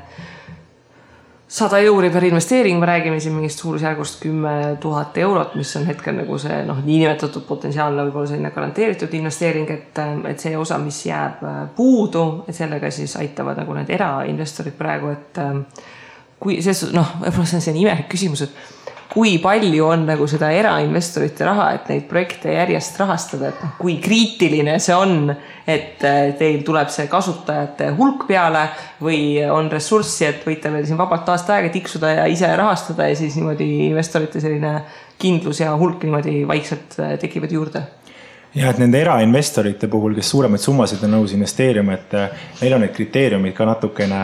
100 euri per investeering, me räägime siin mingist suurusjärgust 10 000 eurot, mis on hetkel nagu see niinimetatud potentsiaalne võib-olla selline garanteeritud investeering, et see osa, mis jääb puudu, et sellega siis aitavad nagu need erainvestorid praegu, et kui see, võib-olla see on selline imelik küsimus, et kui palju on nagu seda erainvestorite raha, et neid projekte järjest rahastada, et kui kriitiline see on, et teil tuleb see kasutajate hulk peale või on ressurssi, et võite veel siin vabalt aasta aega tiksuda ja ise rahastada ja siis niimoodi investorite selline kindlus ja hulk niimoodi vaikselt tekivad juurde? Ja, et nende erainvestorite puhul, kes suuremaid summasid on nõus investeerima, et neil on need kriteeriumid ka natukene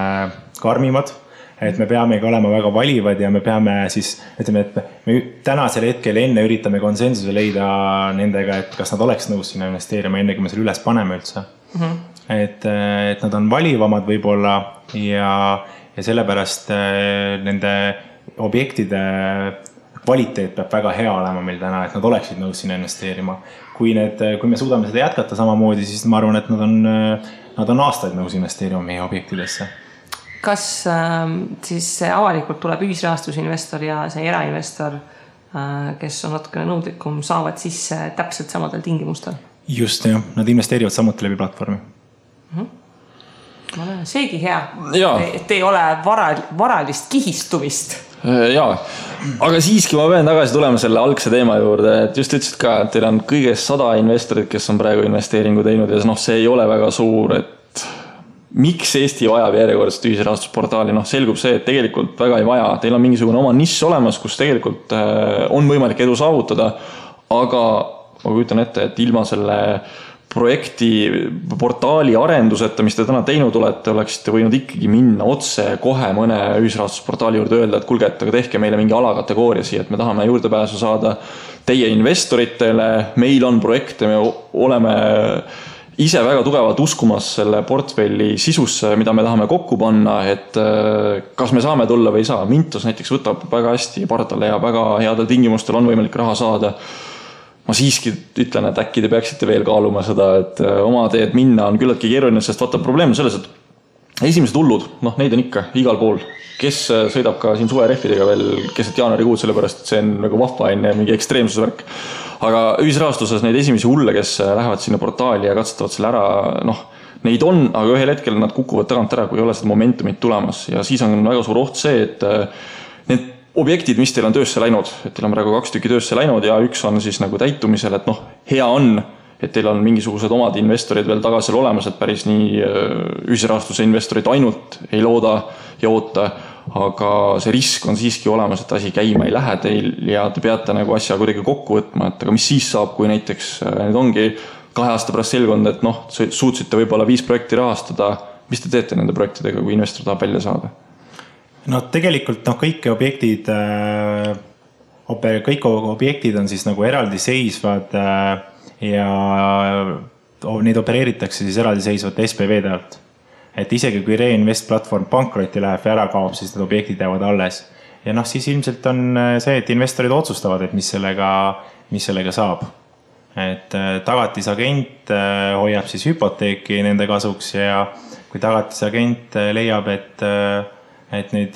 karmimad, et me peamegi olema väga valivad ja me peame siis, ütleme, et me tänasel hetkel enne üritame konsensuse leida nendega, et kas nad oleks nõus sinna investeerima, enne kui me selle üles paneme üldse. Et nad on valivamad võib-olla ja sellepärast nende objektide kvaliteet peab väga hea olema meil täna, et nad oleksid nõus sinna investeerima. Kui me suudame seda jätkata samamoodi, siis ma arvan, et nad on aastaid nõus investeerima meie objektidesse. Kas siis see avalikult tuleb ühisrahastusinvestor ja see erainvestor, kes on natukene nõudlikum, saavad sisse täpselt samadel tingimustel? Just, jah. Nad investeerivad samuti läbi platvormi. Seegi hea, et ei ole varalist kihistumist. Jaa, aga siiski ma pean tagasi tulema selle algse teema juurde, et just ütlesid ka, et teil on kõigest 100 investorid, kes on praegu investeeringu teinud ja see ei ole väga suur, et miks Eesti vajab järjekordset ühisrahastusportaali? Selgub see, et tegelikult väga ei vaja. Teil on mingisugune oma nišš olemas, kus tegelikult on võimalik edu saavutada, aga ma kujutan ette, et ilma selle projekti portaali arenduseta, mis te täna teinud olete, oleksite võinud ikkagi minna otse kohe mõne ühisrahastusportaali juurde öelda, et kulge, et aga tehke meile mingi alakategooria siia, et me tahame juurdepääsu saada teie investoritele, meil on projekte, me oleme ise väga tugevalt uskumas selle portfelli sisusse, mida me tahame kokku panna, et kas me saame tulla või ei saa. Mintos näiteks võtab väga hästi pardale ja väga headel tingimustel on võimalik raha saada. Ma siiski ütlen, et äkki te peaksite veel kaaluma seda, et oma teed minna on küllaltki keeruline, sest vaata probleem on selles, et esimesed hullud, neid on ikka igal pool. Kes sõidab ka siin suverehvidega veel keset jaanuarikuud, sellepärast, et see on nagu vahva enne mingi ekstreemsusvärk. Aga ühisrahastuses neid esimesi hulle, kes lähevad sinna portaali ja katsutavad selle ära, neid on, aga ühel hetkel nad kukuvad tagant ära, kui ei ole seda momentumit tulemas. Ja siis on väga suur oht see, et need objektid, mis teil on töösse läinud, et teil on praegu 2 tükki töösse läinud ja 1 on siis nagu täitumisel, et hea on, et teil on mingisugused omad investorid veel tagasi olemas, et päris nii ühisrahastuse investorid ainult ei looda ja oota, aga see risk on siiski olemas, et asi käima ei lähe teil ja te peate nagu asja kuidagi kokku võtma, et aga mis siis saab, kui näiteks nüüd ongi 2 aasta pärast selgunud, et suutsite võib-olla 5 projekti rahastada, mis te teete nende projektidega, kui investor tahab välja saada? Tegelikult kõik objektid on siis nagu eraldi seisvad ja neid opereeritakse siis eraldi seisvate SPV-de alt. Et isegi kui Reinvest platvorm pankrotti läheb ja ära kaob, siis need objektid jäävad alles. Ja siis ilmselt on see, et investorid otsustavad, et mis sellega saab. Et tagatisagent hoiab siis hüpoteeki nende kasuks ja kui tagatisagent leiab, et neid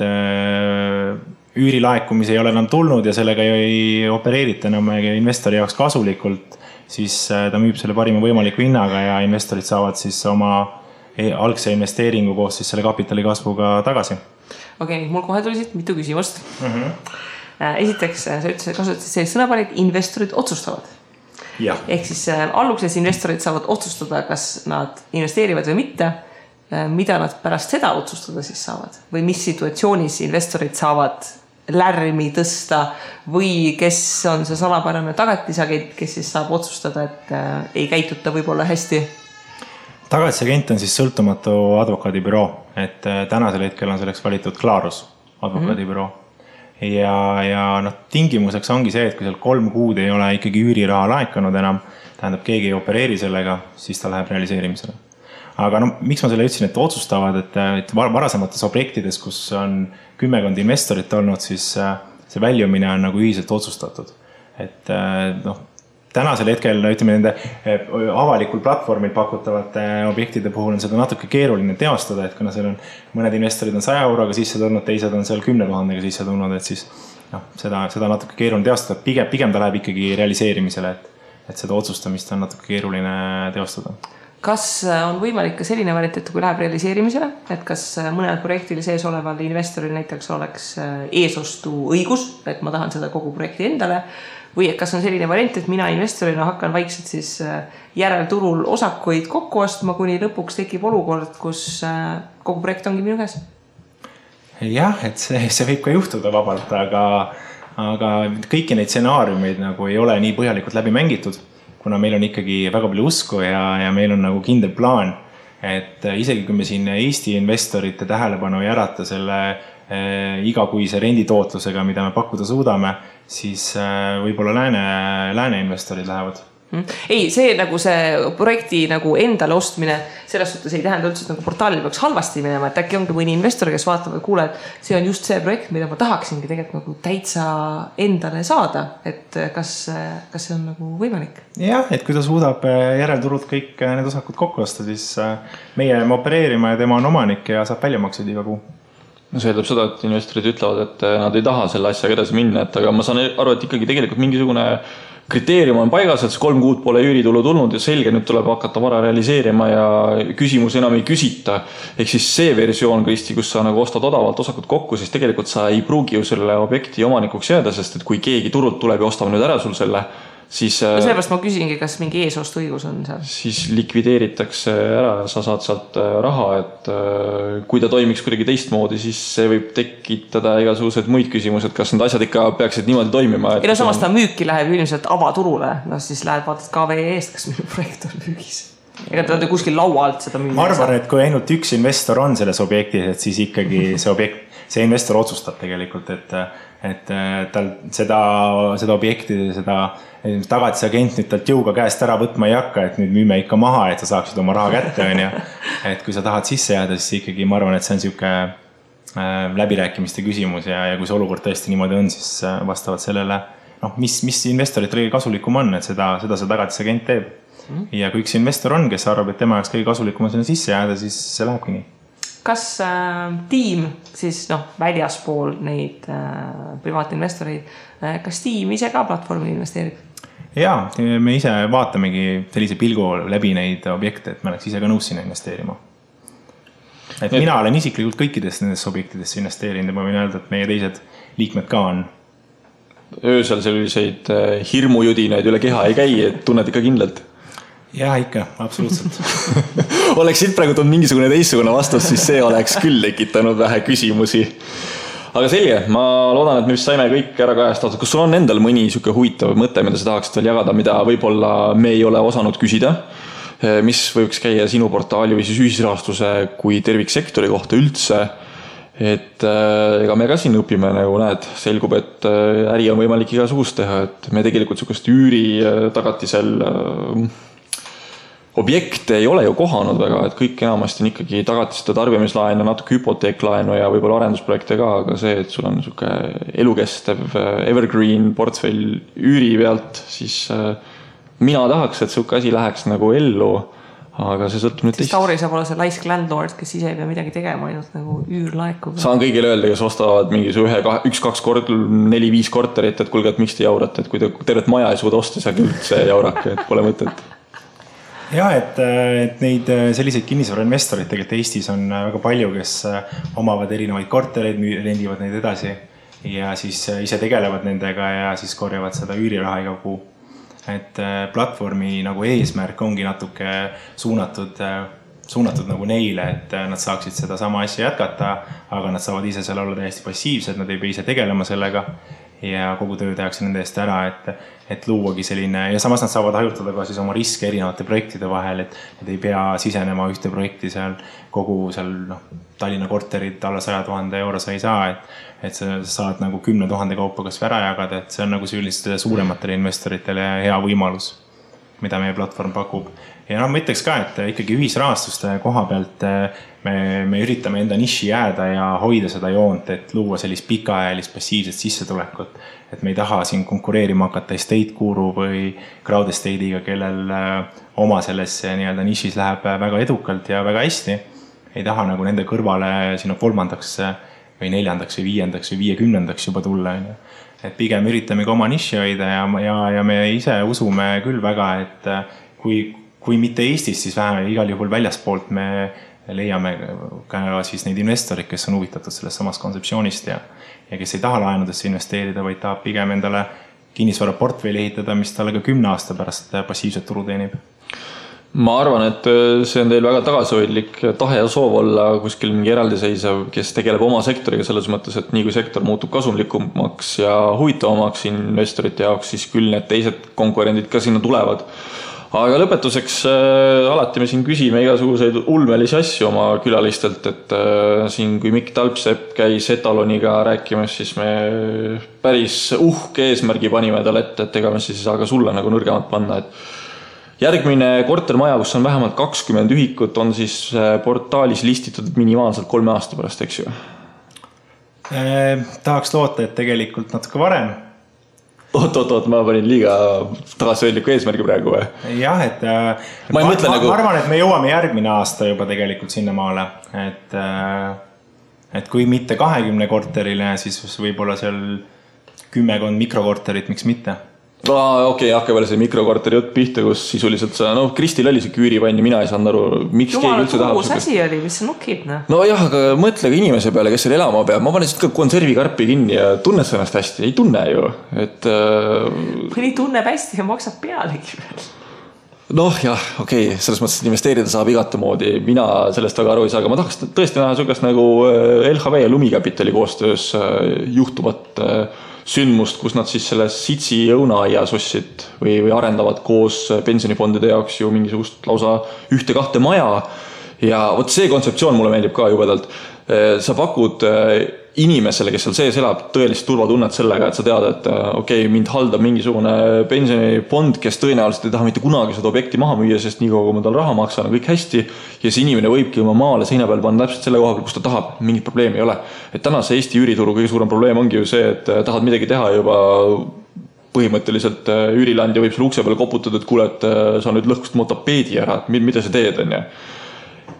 üürilaekumisi ei ole enam tulnud ja sellega ei opereerita enam investori jaoks kasulikult, siis ta müüb selle parima võimaliku hinnaga ja investorid saavad siis oma algse investeeringu koos siis selle kapitali kasvuga tagasi. Okei, mul kohe tuli siit mitu küsimust. Esiteks, sa kasutasid sellist sõnaparit, investorid otsustavad. Ehk siis alguses investorid saavad otsustada, kas nad investeerivad või mitte, mida nad pärast seda otsustada siis saavad või mis situatsioonis investorid saavad lärmi tõsta või kes on see salapärane tagatisagent, kes siis saab otsustada, et ei käituta võib-olla hästi? Tagatisagent on siis sõltumatu advokaadibüroo, et tänasel hetkel on selleks valitud Clarus advokaadibüroo. Ja tingimuseks ongi see, et kui seal 3 kuud ei ole ikkagi üüriraha laekunud enam, tähendab keegi ei opereeri sellega, siis ta läheb realiseerimisele. Aga miks ma selle ütlesin, et otsustavad, et varasemates objektides, kus on 10 investorit olnud, siis see väljumine on nagu ühiselt otsustatud. Et tänasel hetkel, ütleme nende avalikul platvormil pakutavate objektide puhul on seda natuke keeruline teostada, et kuna seal on mõned investorid on 100 euroga sisse tulnud, teised on seal 10 000 sisse tulnud, et siis seda natuke keeruline teostada. Pigem ta läheb ikkagi realiseerimisele, et seda otsustamist on natuke keeruline teostada. Kas on võimalik ka selline variant, et kui läheb realiseerimisele, et kas mõnel projektil sees oleval investoril näiteks oleks eesostu õigus, et ma tahan seda kogu projekti endale, või kas on selline variant, et mina investorina hakkan vaikselt siis järelturul osakuid kokku ostma, kuni lõpuks tekib olukord, kus kogu projekt ongi minu käes? Jah, et see võib ka juhtuda vabalt, aga kõiki neid stsenaariumeid nagu ei ole nii põhjalikult läbi mängitud, kuna meil on ikkagi väga palju usku ja meil on nagu kindel plaan, et isegi kui me siin Eesti investorite tähelepanu ei ärata selle igakuise renditootlusega, mida me pakkuda suudame, siis võib-olla lääne investorid lähevad. Ei, see nagu see projekti nagu endale ostmine selles suhtes ei tähenda üldse, et nagu portaalil peaks halvasti minema, et äkki ongi mõni investor, kes vaatab, et kuule, et see on just see projekt, mida ma tahaksingi tegelikult nagu täitsa endale saada, et kas see on nagu võimalik? Jah, et kui ta suudab järelturult kõik need osakud kokku osta, siis meie jääme opereerima ja tema on omanik ja saab väljamaksed iga kuu. No see eeldab seda, et investorid ütlevad, et nad ei taha selle asjaga edasi minna, et aga ma saan aru, et ikkagi tegelikult mingisugune kriteerium on paigas, et 3 kuud pole üüritulu tulnud ja selge, nüüd tuleb hakata vara realiseerima ja küsimus enam ei küsita. Ehk siis see versioon, Kristi, kus sa nagu ostad odavalt osakut kokku, siis tegelikult sa ei pruugi ju selle objekti omanikuks jääda, sest et kui keegi turult tuleb ja ostab nüüd ära sul selle, siis sellepärast ma küsingi, kas mingi eesostu õigus on seal? Siis likvideeritakse ära ja sa saad sealt raha, et kui ta toimiks kuidagi teistmoodi, siis see võib tekitada igasugused muid küsimused, kas need asjad ikka peaksid niimoodi toimima. Ja samas ta müüki läheb ilmselt avaturule, siis lähed vaatad KVE eest, kas minu projekt on müügis. Ega ta kuskil laua alt seda müüa. Ma arvan, et kui ainult üks investor on selles objektis, et siis ikkagi see investor otsustab tegelikult, et tal seda objekti, seda tagatisagent nüüd talt jõuga käest ära võtma ei hakka, et nüüd müüme ikka maha, et sa saaksid oma raha kätte. Et kui sa tahad sisse jääda, siis ikkagi ma arvan, et see on siuke läbirääkimiste küsimus ja kui see olukord tõesti niimoodi on, siis vastavalt sellele, mis investorit kõige kasulikum on, et seda see tagatisagent teeb. Ja kui üks investor on, kes arvab, et tema jaoks kõige kasulikum on sinna sisse jääda, siis see lähebki nii. Kas tiim siis väljaspool neid privaatinvestoreid, kas tiim ise ka platvormi investeerib? Jaa, me ise vaatamegi sellise pilgu läbi neid objekte, et me oleks ise ka nõus sinna investeerima. Et mina olen isiklikult kõikidest nendest objektidest investeerinud ja ma võin öelda, et meie teised liikmed ka on. Öösel selliseid hirmujudinaid üle keha ei käi, et tunned ikka kindlalt? Jaa, ikka, absoluutselt. Oleks siit praegu tulnud mingisugune teistsugune vastus, siis see oleks küll tekitanud vähe küsimusi. Aga selge, ma loodan, et me vist saime kõik ära kajastatud. Kas sul on endal mõni siuke huvitav mõte, mida sa tahaksid veel jagada, mida võib-olla me ei ole osanud küsida? Mis võiks käia sinu portaali või siis ühisrahastuse kui terviksektori kohta üldse? Et ega me ka siin õpime, nagu näed, selgub, et äri on võimalik igasugust teha, et me tegelikult siukest üüri tagatisel objekte ei ole ju kohanud väga, et kõik enamasti on ikkagi tagatised ja tarbimislaen ja natuke hüpoteeklaenu ja võib-olla arendusprojekte ka, aga see, et sul on siuke elukestev evergreen portfell üüri pealt, siis mina tahaks, et siuke asi läheks nagu ellu, aga see sõltub nüüd teist. Tauri saab olla see laisk landlord, kes ise ei pea midagi tegema, ainult nagu üür laekub. Saan kõigile öelda, kes ostavad mingi 1-2 kord, 4-5 korterit, et kuulge, et miks te jaurate, et kui te tervet maja ei suuda osta, siis üldse jaurake, et pole mõtet. jah, et neid selliseid kinnisvarainvestoreid tegelikult Eestis on väga palju, kes omavad erinevaid kortereid, rendivad neid edasi ja siis ise tegelevad nendega ja siis korjavad seda üüriraha iga kuu. Et platvormi nagu eesmärk ongi natuke suunatud nagu neile, et nad saaksid seda sama asja jätkata, aga nad saavad ise seal olla täiesti passiivsed, nad ei pea ise tegelema sellega ja kogu töö tehakse nende eest ära, et luuagi selline ja samas nad saavad hajutada ka siis oma riske erinevate projektide vahel, et ei pea sisenema ühte projekti seal kogu seal Tallinna korterid alla 100 000 euro sa ei saa, et sa saad nagu 10 000 kaupa kas ära jagada, et see on nagu sellistele suurematele investoritele hea võimalus, mida meie platvorm pakub. Ja ma ütleks ka, et ikkagi ühisrahastuste koha pealt me üritame enda niši jääda ja hoida seda joont, et luua sellist pikaajalist passiivset sissetulekut. Et me ei taha siin konkureerima hakata estate guru või crowd estate'iga, kellel oma sellesse nii-öelda nišis läheb väga edukalt ja väga hästi. Ei taha nagu nende kõrvale sinna 3. või 4. või 5. või 50. juba tulla. Et pigem üritame ka oma niši hoida ja me ise usume küll väga, et kui mitte Eestis, siis vähemalt igal juhul väljaspoolt me leiame ka siis neid investorid, kes on huvitatud sellest samast kontseptsioonist ja kes ei taha laenudesse investeerida, vaid tahab pigem endale kinnisvaraportfelli ehitada, mis talle ka 10 aasta pärast passiivset tulu teenib. Ma arvan, et see on teil väga tagasihoidlik tahe ja soov olla kuskil mingi eraldiseisev, kes tegeleb oma sektoriga selles mõttes, et nii kui sektor muutub kasumlikumaks ja huvitavamaks investorite jaoks, siis küll need teised konkurendid ka sinna tulevad. Aga lõpetuseks alati me siin küsime igasuguseid ulmelisi asju oma külalistelt, et siin kui Mikk Talpsepp käis Etaloniga rääkimas, siis me päris uhke eesmärgi panime talle ette, et ega me siis ei saa ka sulle nagu nõrgemat panna, et järgmine kortermaja, kus on vähemalt 20 ühikut, on siis portaalis listitud minimaalselt 3 aasta pärast, eks ju? Tahaks loota, et tegelikult natuke varem. Oot, ma panin liiga tagasihoidliku eesmärgi praegu või? Jah, et ma arvan, et me jõuame järgmine aasta juba tegelikult sinna maale, et kui mitte 20 korterile, siis võib-olla seal 10 mikrokorterit, miks mitte? Okei, hakka veel see mikrokorteri jutt pihta, kus sisuliselt Kristil oli see küürivann ja mina ei saanud aru, miks keegi üldse tahab. Jumala asi oli, mis sa nukid? No jah, aga mõtle ka inimese peale, kes seal elama peab. Ma panen siit ka konservikarpi kinni ja tunned sa ennast hästi. Ei tunne ju. Mõni tunneb hästi ja maksab pealegi veel. Jah, okei, selles mõttes, et investeerida saab igate moodi. Mina sellest väga aru ei saa, aga ma tahaks tõesti näha sugust nagu LHV ja Lumikapitali koostöös juhtuvat sündmust, kus nad siis selles Sitsi õunaaia sussid või arendavad koos pensionifondide jaoks ju mingisugust lausa 1-2 maja. Ja võt see kontseptsioon mulle meeldib ka jubedalt. Sa pakud inimesele, kes seal sees elab, tõelist turvatunnet sellega, et sa tead, et okei, mind haldab mingisugune pensionifond, kes tõenäoliselt ei taha mitte kunagi seda objekti maha müüa, sest nii kaua, kui ma tal raha maksan, on kõik hästi. Ja see inimene võibki oma maale seina peal panna täpselt selle koha peal, kus ta tahab. Mingit probleemi ei ole. Et tänase Eesti üürituru kõige suurem probleem ongi ju see, et tahad midagi teha juba põhimõtteliselt üürilandja võib selle ukse peale koputada, et kuule, et sa nüüd lõhkust mu tapeedi ära, et mida sa teed, on ja.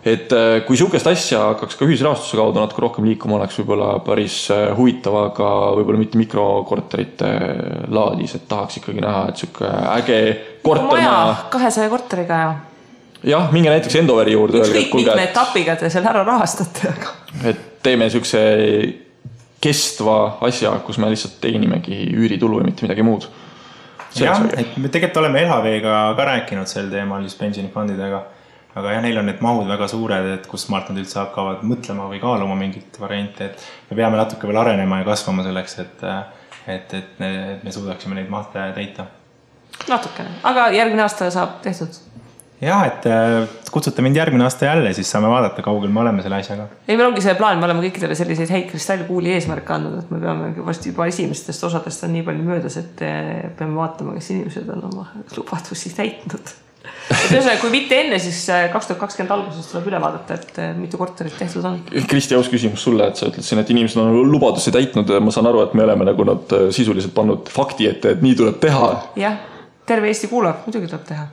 Et kui sihukest asja hakkaks ka ühisrahastuse kaudu natuke rohkem liikuma, oleks võib-olla päris huvitav, aga võib-olla mitte mikrokorterite laadis, et tahaks ikkagi näha, et sihuke äge kortermaja. 200 korteriga ja. Jah, minge näiteks Endoveri juurde. Ükskõik mitme etapiga te seal ära rahastate. Et teeme sihukese kestva asja, kus me lihtsalt teenimegi üüritulu ja mitte midagi muud. Jah, et me tegelikult oleme LHV-ga ka rääkinud sel teemal just pensionifondidega. Aga jah, neil on need mahud väga suured, et kus maalt nad üldse hakkavad mõtlema või kaaluma mingit varianti, et me peame natuke veel arenema ja kasvama selleks, et me suudaksime neid mahte täita. Natukene, aga järgmine aasta saab tehtud? Jah, et kutsute mind järgmine aasta jälle, siis saame vaadata, kaugel me oleme selle asjaga. Ei, meil ongi see plaan, me oleme kõikidele selliseid häid kristallkuuli eesmärke andnud, et me peame varsti juba esimestest osadest on nii palju möödas, et peame vaatama, kes inimesed on oma lubadusi täitnud. Kui mitte enne, siis 2020 alguses tuleb üle vaadata, et mitu korterit tehtud on. Kristi, aus küsimus sulle, et sa ütled siin, et inimesed on lubadusi täitnud. Ma saan aru, et me oleme nagu nad sisuliselt pannud fakti ette, et nii tuleb teha. Jah, terve Eesti kuulab, muidugi tuleb teha.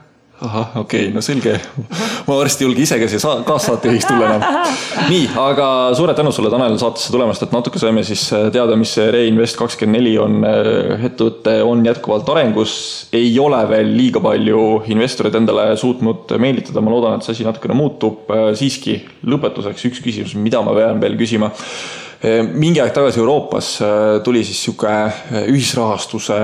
ahah, okei, no selge. Ma varsti julge ise ka siia kaassaatejuhiks tulla enam. Nii, aga suured tänu sulle, Tanel, saatesse tulemast, et natuke saime siis teada, mis see Reinvest24 on. Ettevõte on jätkuvalt arengus, ei ole veel liiga palju investorid endale suutnud meelitada. Ma loodan, et see asi natukene muutub. Siiski lõpetuseks üks küsimus, mida ma pean veel küsima. Mingi aeg tagasi Euroopas tuli siis siuke ühisrahastuse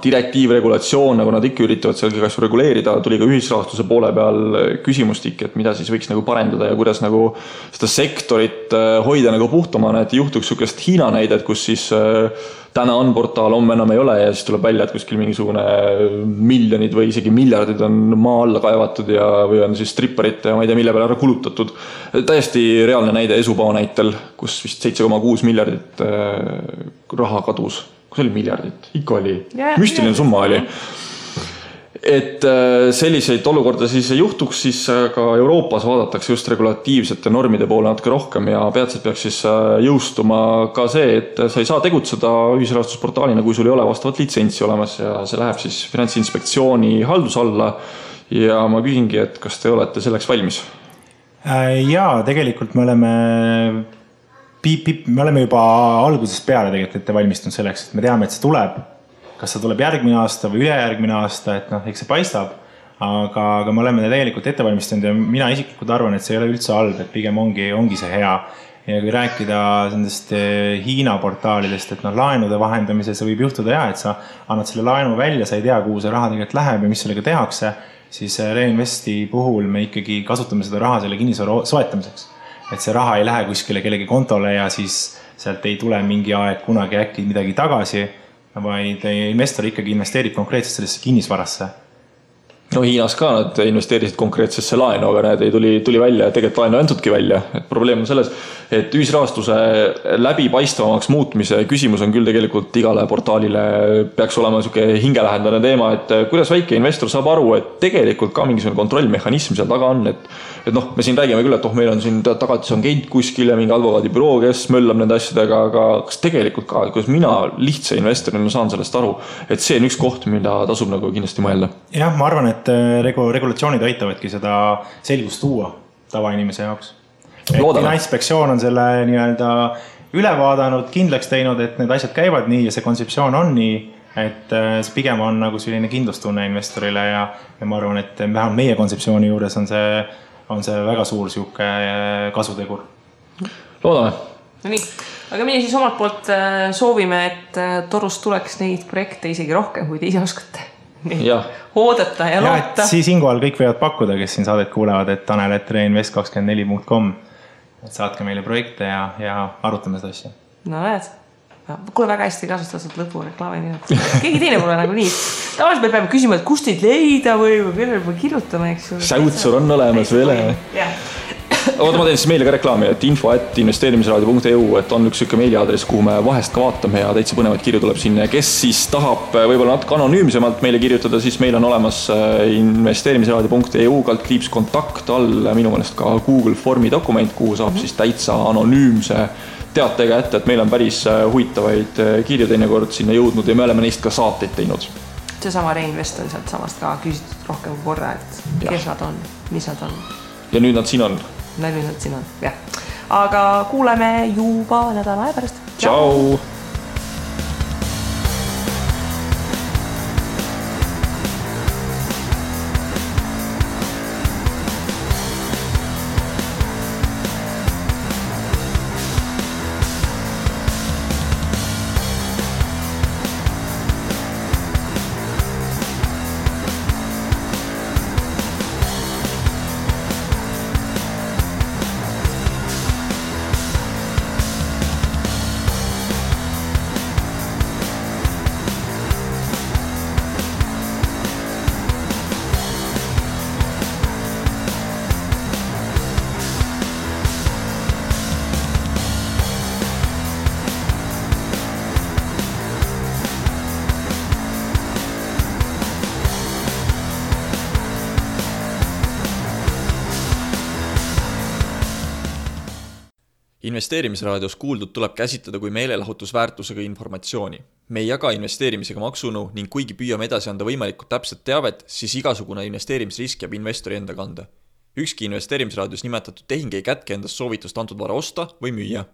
direktiiv, regulatsioon, nagu nad ikka üritavad seal kas reguleerida, tuli ka ühisrahastuse poole peal küsimustik, et mida siis võiks nagu parendada ja kuidas nagu seda sektorit hoida nagu puhtamana, et ei juhtuks siukest Hiina näidet, kus siis täna on portaal, homme enam ei ole ja siis tuleb välja, et kuskil mingisugune miljonid või isegi miljardid on maa alla kaevatud ja või on siis stripperite ja ma ei tea, mille peale ära kulutatud. Täiesti reaalne näide Esupao näitel, kus vist 7,6 miljardit raha kadus. See oli miljardit, ikka oli, müstiline summa oli. Et selliseid olukorda siis ei juhtuks, siis ka Euroopas vaadatakse just regulatiivsete normide poole natuke rohkem ja peatselt peaks siis jõustuma ka see, et sa ei saa tegutseda ühisrahastusportaalina, kui sul ei ole vastavat litsentsi olemas ja see läheb siis Finantsinspektsiooni haldus alla ja ma küsingi, et kas te olete selleks valmis? Jaa, tegelikult me oleme juba algusest peale tegelikult ette valmistunud selleks, et me teame, et see tuleb. Kas see tuleb järgmine aasta või ülejärgmine aasta, et eks see paistab. Aga me oleme tegelikult ette valmistunud ja mina isiklikult arvan, et see ei ole üldse halb, et pigem ongi see hea. Ja kui rääkida nendest Hiina portaalidest, et laenude vahendamisel see võib juhtuda et sa annad selle laenu välja, sa ei tea, kuhu see raha tegelikult läheb ja mis sellega tehakse, siis Reinvesti puhul me ikkagi kasutame seda raha selle kinnisvara soetamiseks. Et see raha ei lähe kuskile kellegi kontole ja siis sealt ei tule mingi aeg kunagi äkki midagi tagasi, vaid investor ikkagi investeerib konkreetselt sellesse kinnisvarasse. No Hiinas ka nad investeerisid konkreetsesse laenu, aga need ei tuli välja ja tegelikult laenu antudki välja. Et probleem on selles, et ühisrahastuse läbipaistvamaks muutmise küsimus on küll tegelikult igale portaalile peaks olema siuke hingelähendane teema, et kuidas väike investor saab aru, et tegelikult ka mingisugune kontrollmehhanism seal taga on, et me siin räägime küll, et meil on siin tagatis on agent kuskil ja mingi advokaadibüroo, kes möllab nende asjadega, aga kas tegelikult ka, kuidas mina lihtsa investorina saan sellest aru, et see on üks koht, mida tasub nagu kindlasti mõelda. Jah, ma arvan, et regulatsioonid aitavadki seda selgust tuua tavainimese jaoks. Finantsinspektsioon on selle nii-öelda üle vaadanud, kindlaks teinud, et need asjad käivad nii ja see kontseptsioon on nii, et see pigem on nagu selline kindlustunne investorile ja ma arvan, et vähemalt meie kontseptsiooni juures on see väga suur siuke kasutegur. Loodame. No nii, aga meie siis omalt poolt soovime, et Torust tuleks neid projekte isegi rohkem, kui te ise oskate. Oodata ja loota. Ja siis siinkohal kõik võivad pakkuda, kes siin saadet kuulevad, et tanel@reinvest24.com, et saatke meile projekte ja arutame seda asja. No näed, kuule väga hästi kasustatud lõpu reklaami minut. Keegi teine pole nagu nii. Tavaliselt me peame küsima, et kust teid leida või kellele me kirjutame, eks ju. Säutsur on olemas veel. Oota, ma teen siis meile ka reklaami, et info@investeerimisraadio.eu, et on üks siuke meiliaadress, kuhu me vahest ka vaatame ja täitsa põnevaid kirju tuleb sinna. Kes siis tahab võib-olla natuke anonüümsemalt meile kirjutada, siis meil on olemas investeerimisraadio.eu /kontakt all minu meelest ka Google Formi dokument, kuhu saab siis täitsa anonüümse teatega ette, et meil on päris huvitavaid kirju teinekord sinna jõudnud ja me oleme neist ka saateid teinud. Seesama Reinvest on sealt samast ka küsitud rohkem korra, et kes nad on, mis nad on. Ja nüüd nad siin on. Nüüd nad siin on, jah. Aga kuuleme juba nädala aja pärast. Tšau! Investeerimisraadios kuuldud tuleb käsitleda kui meelelahutusväärtusega informatsiooni. Me ei jaga investeerimisega maksunõu ning kuigi püüame edasi anda võimalikult täpset teavet, siis igasugune investeerimisrisk jääb investori enda kanda. Ükski investeerimisraadios nimetatud tehing ei kätke endast soovitust antud vara osta või müüa.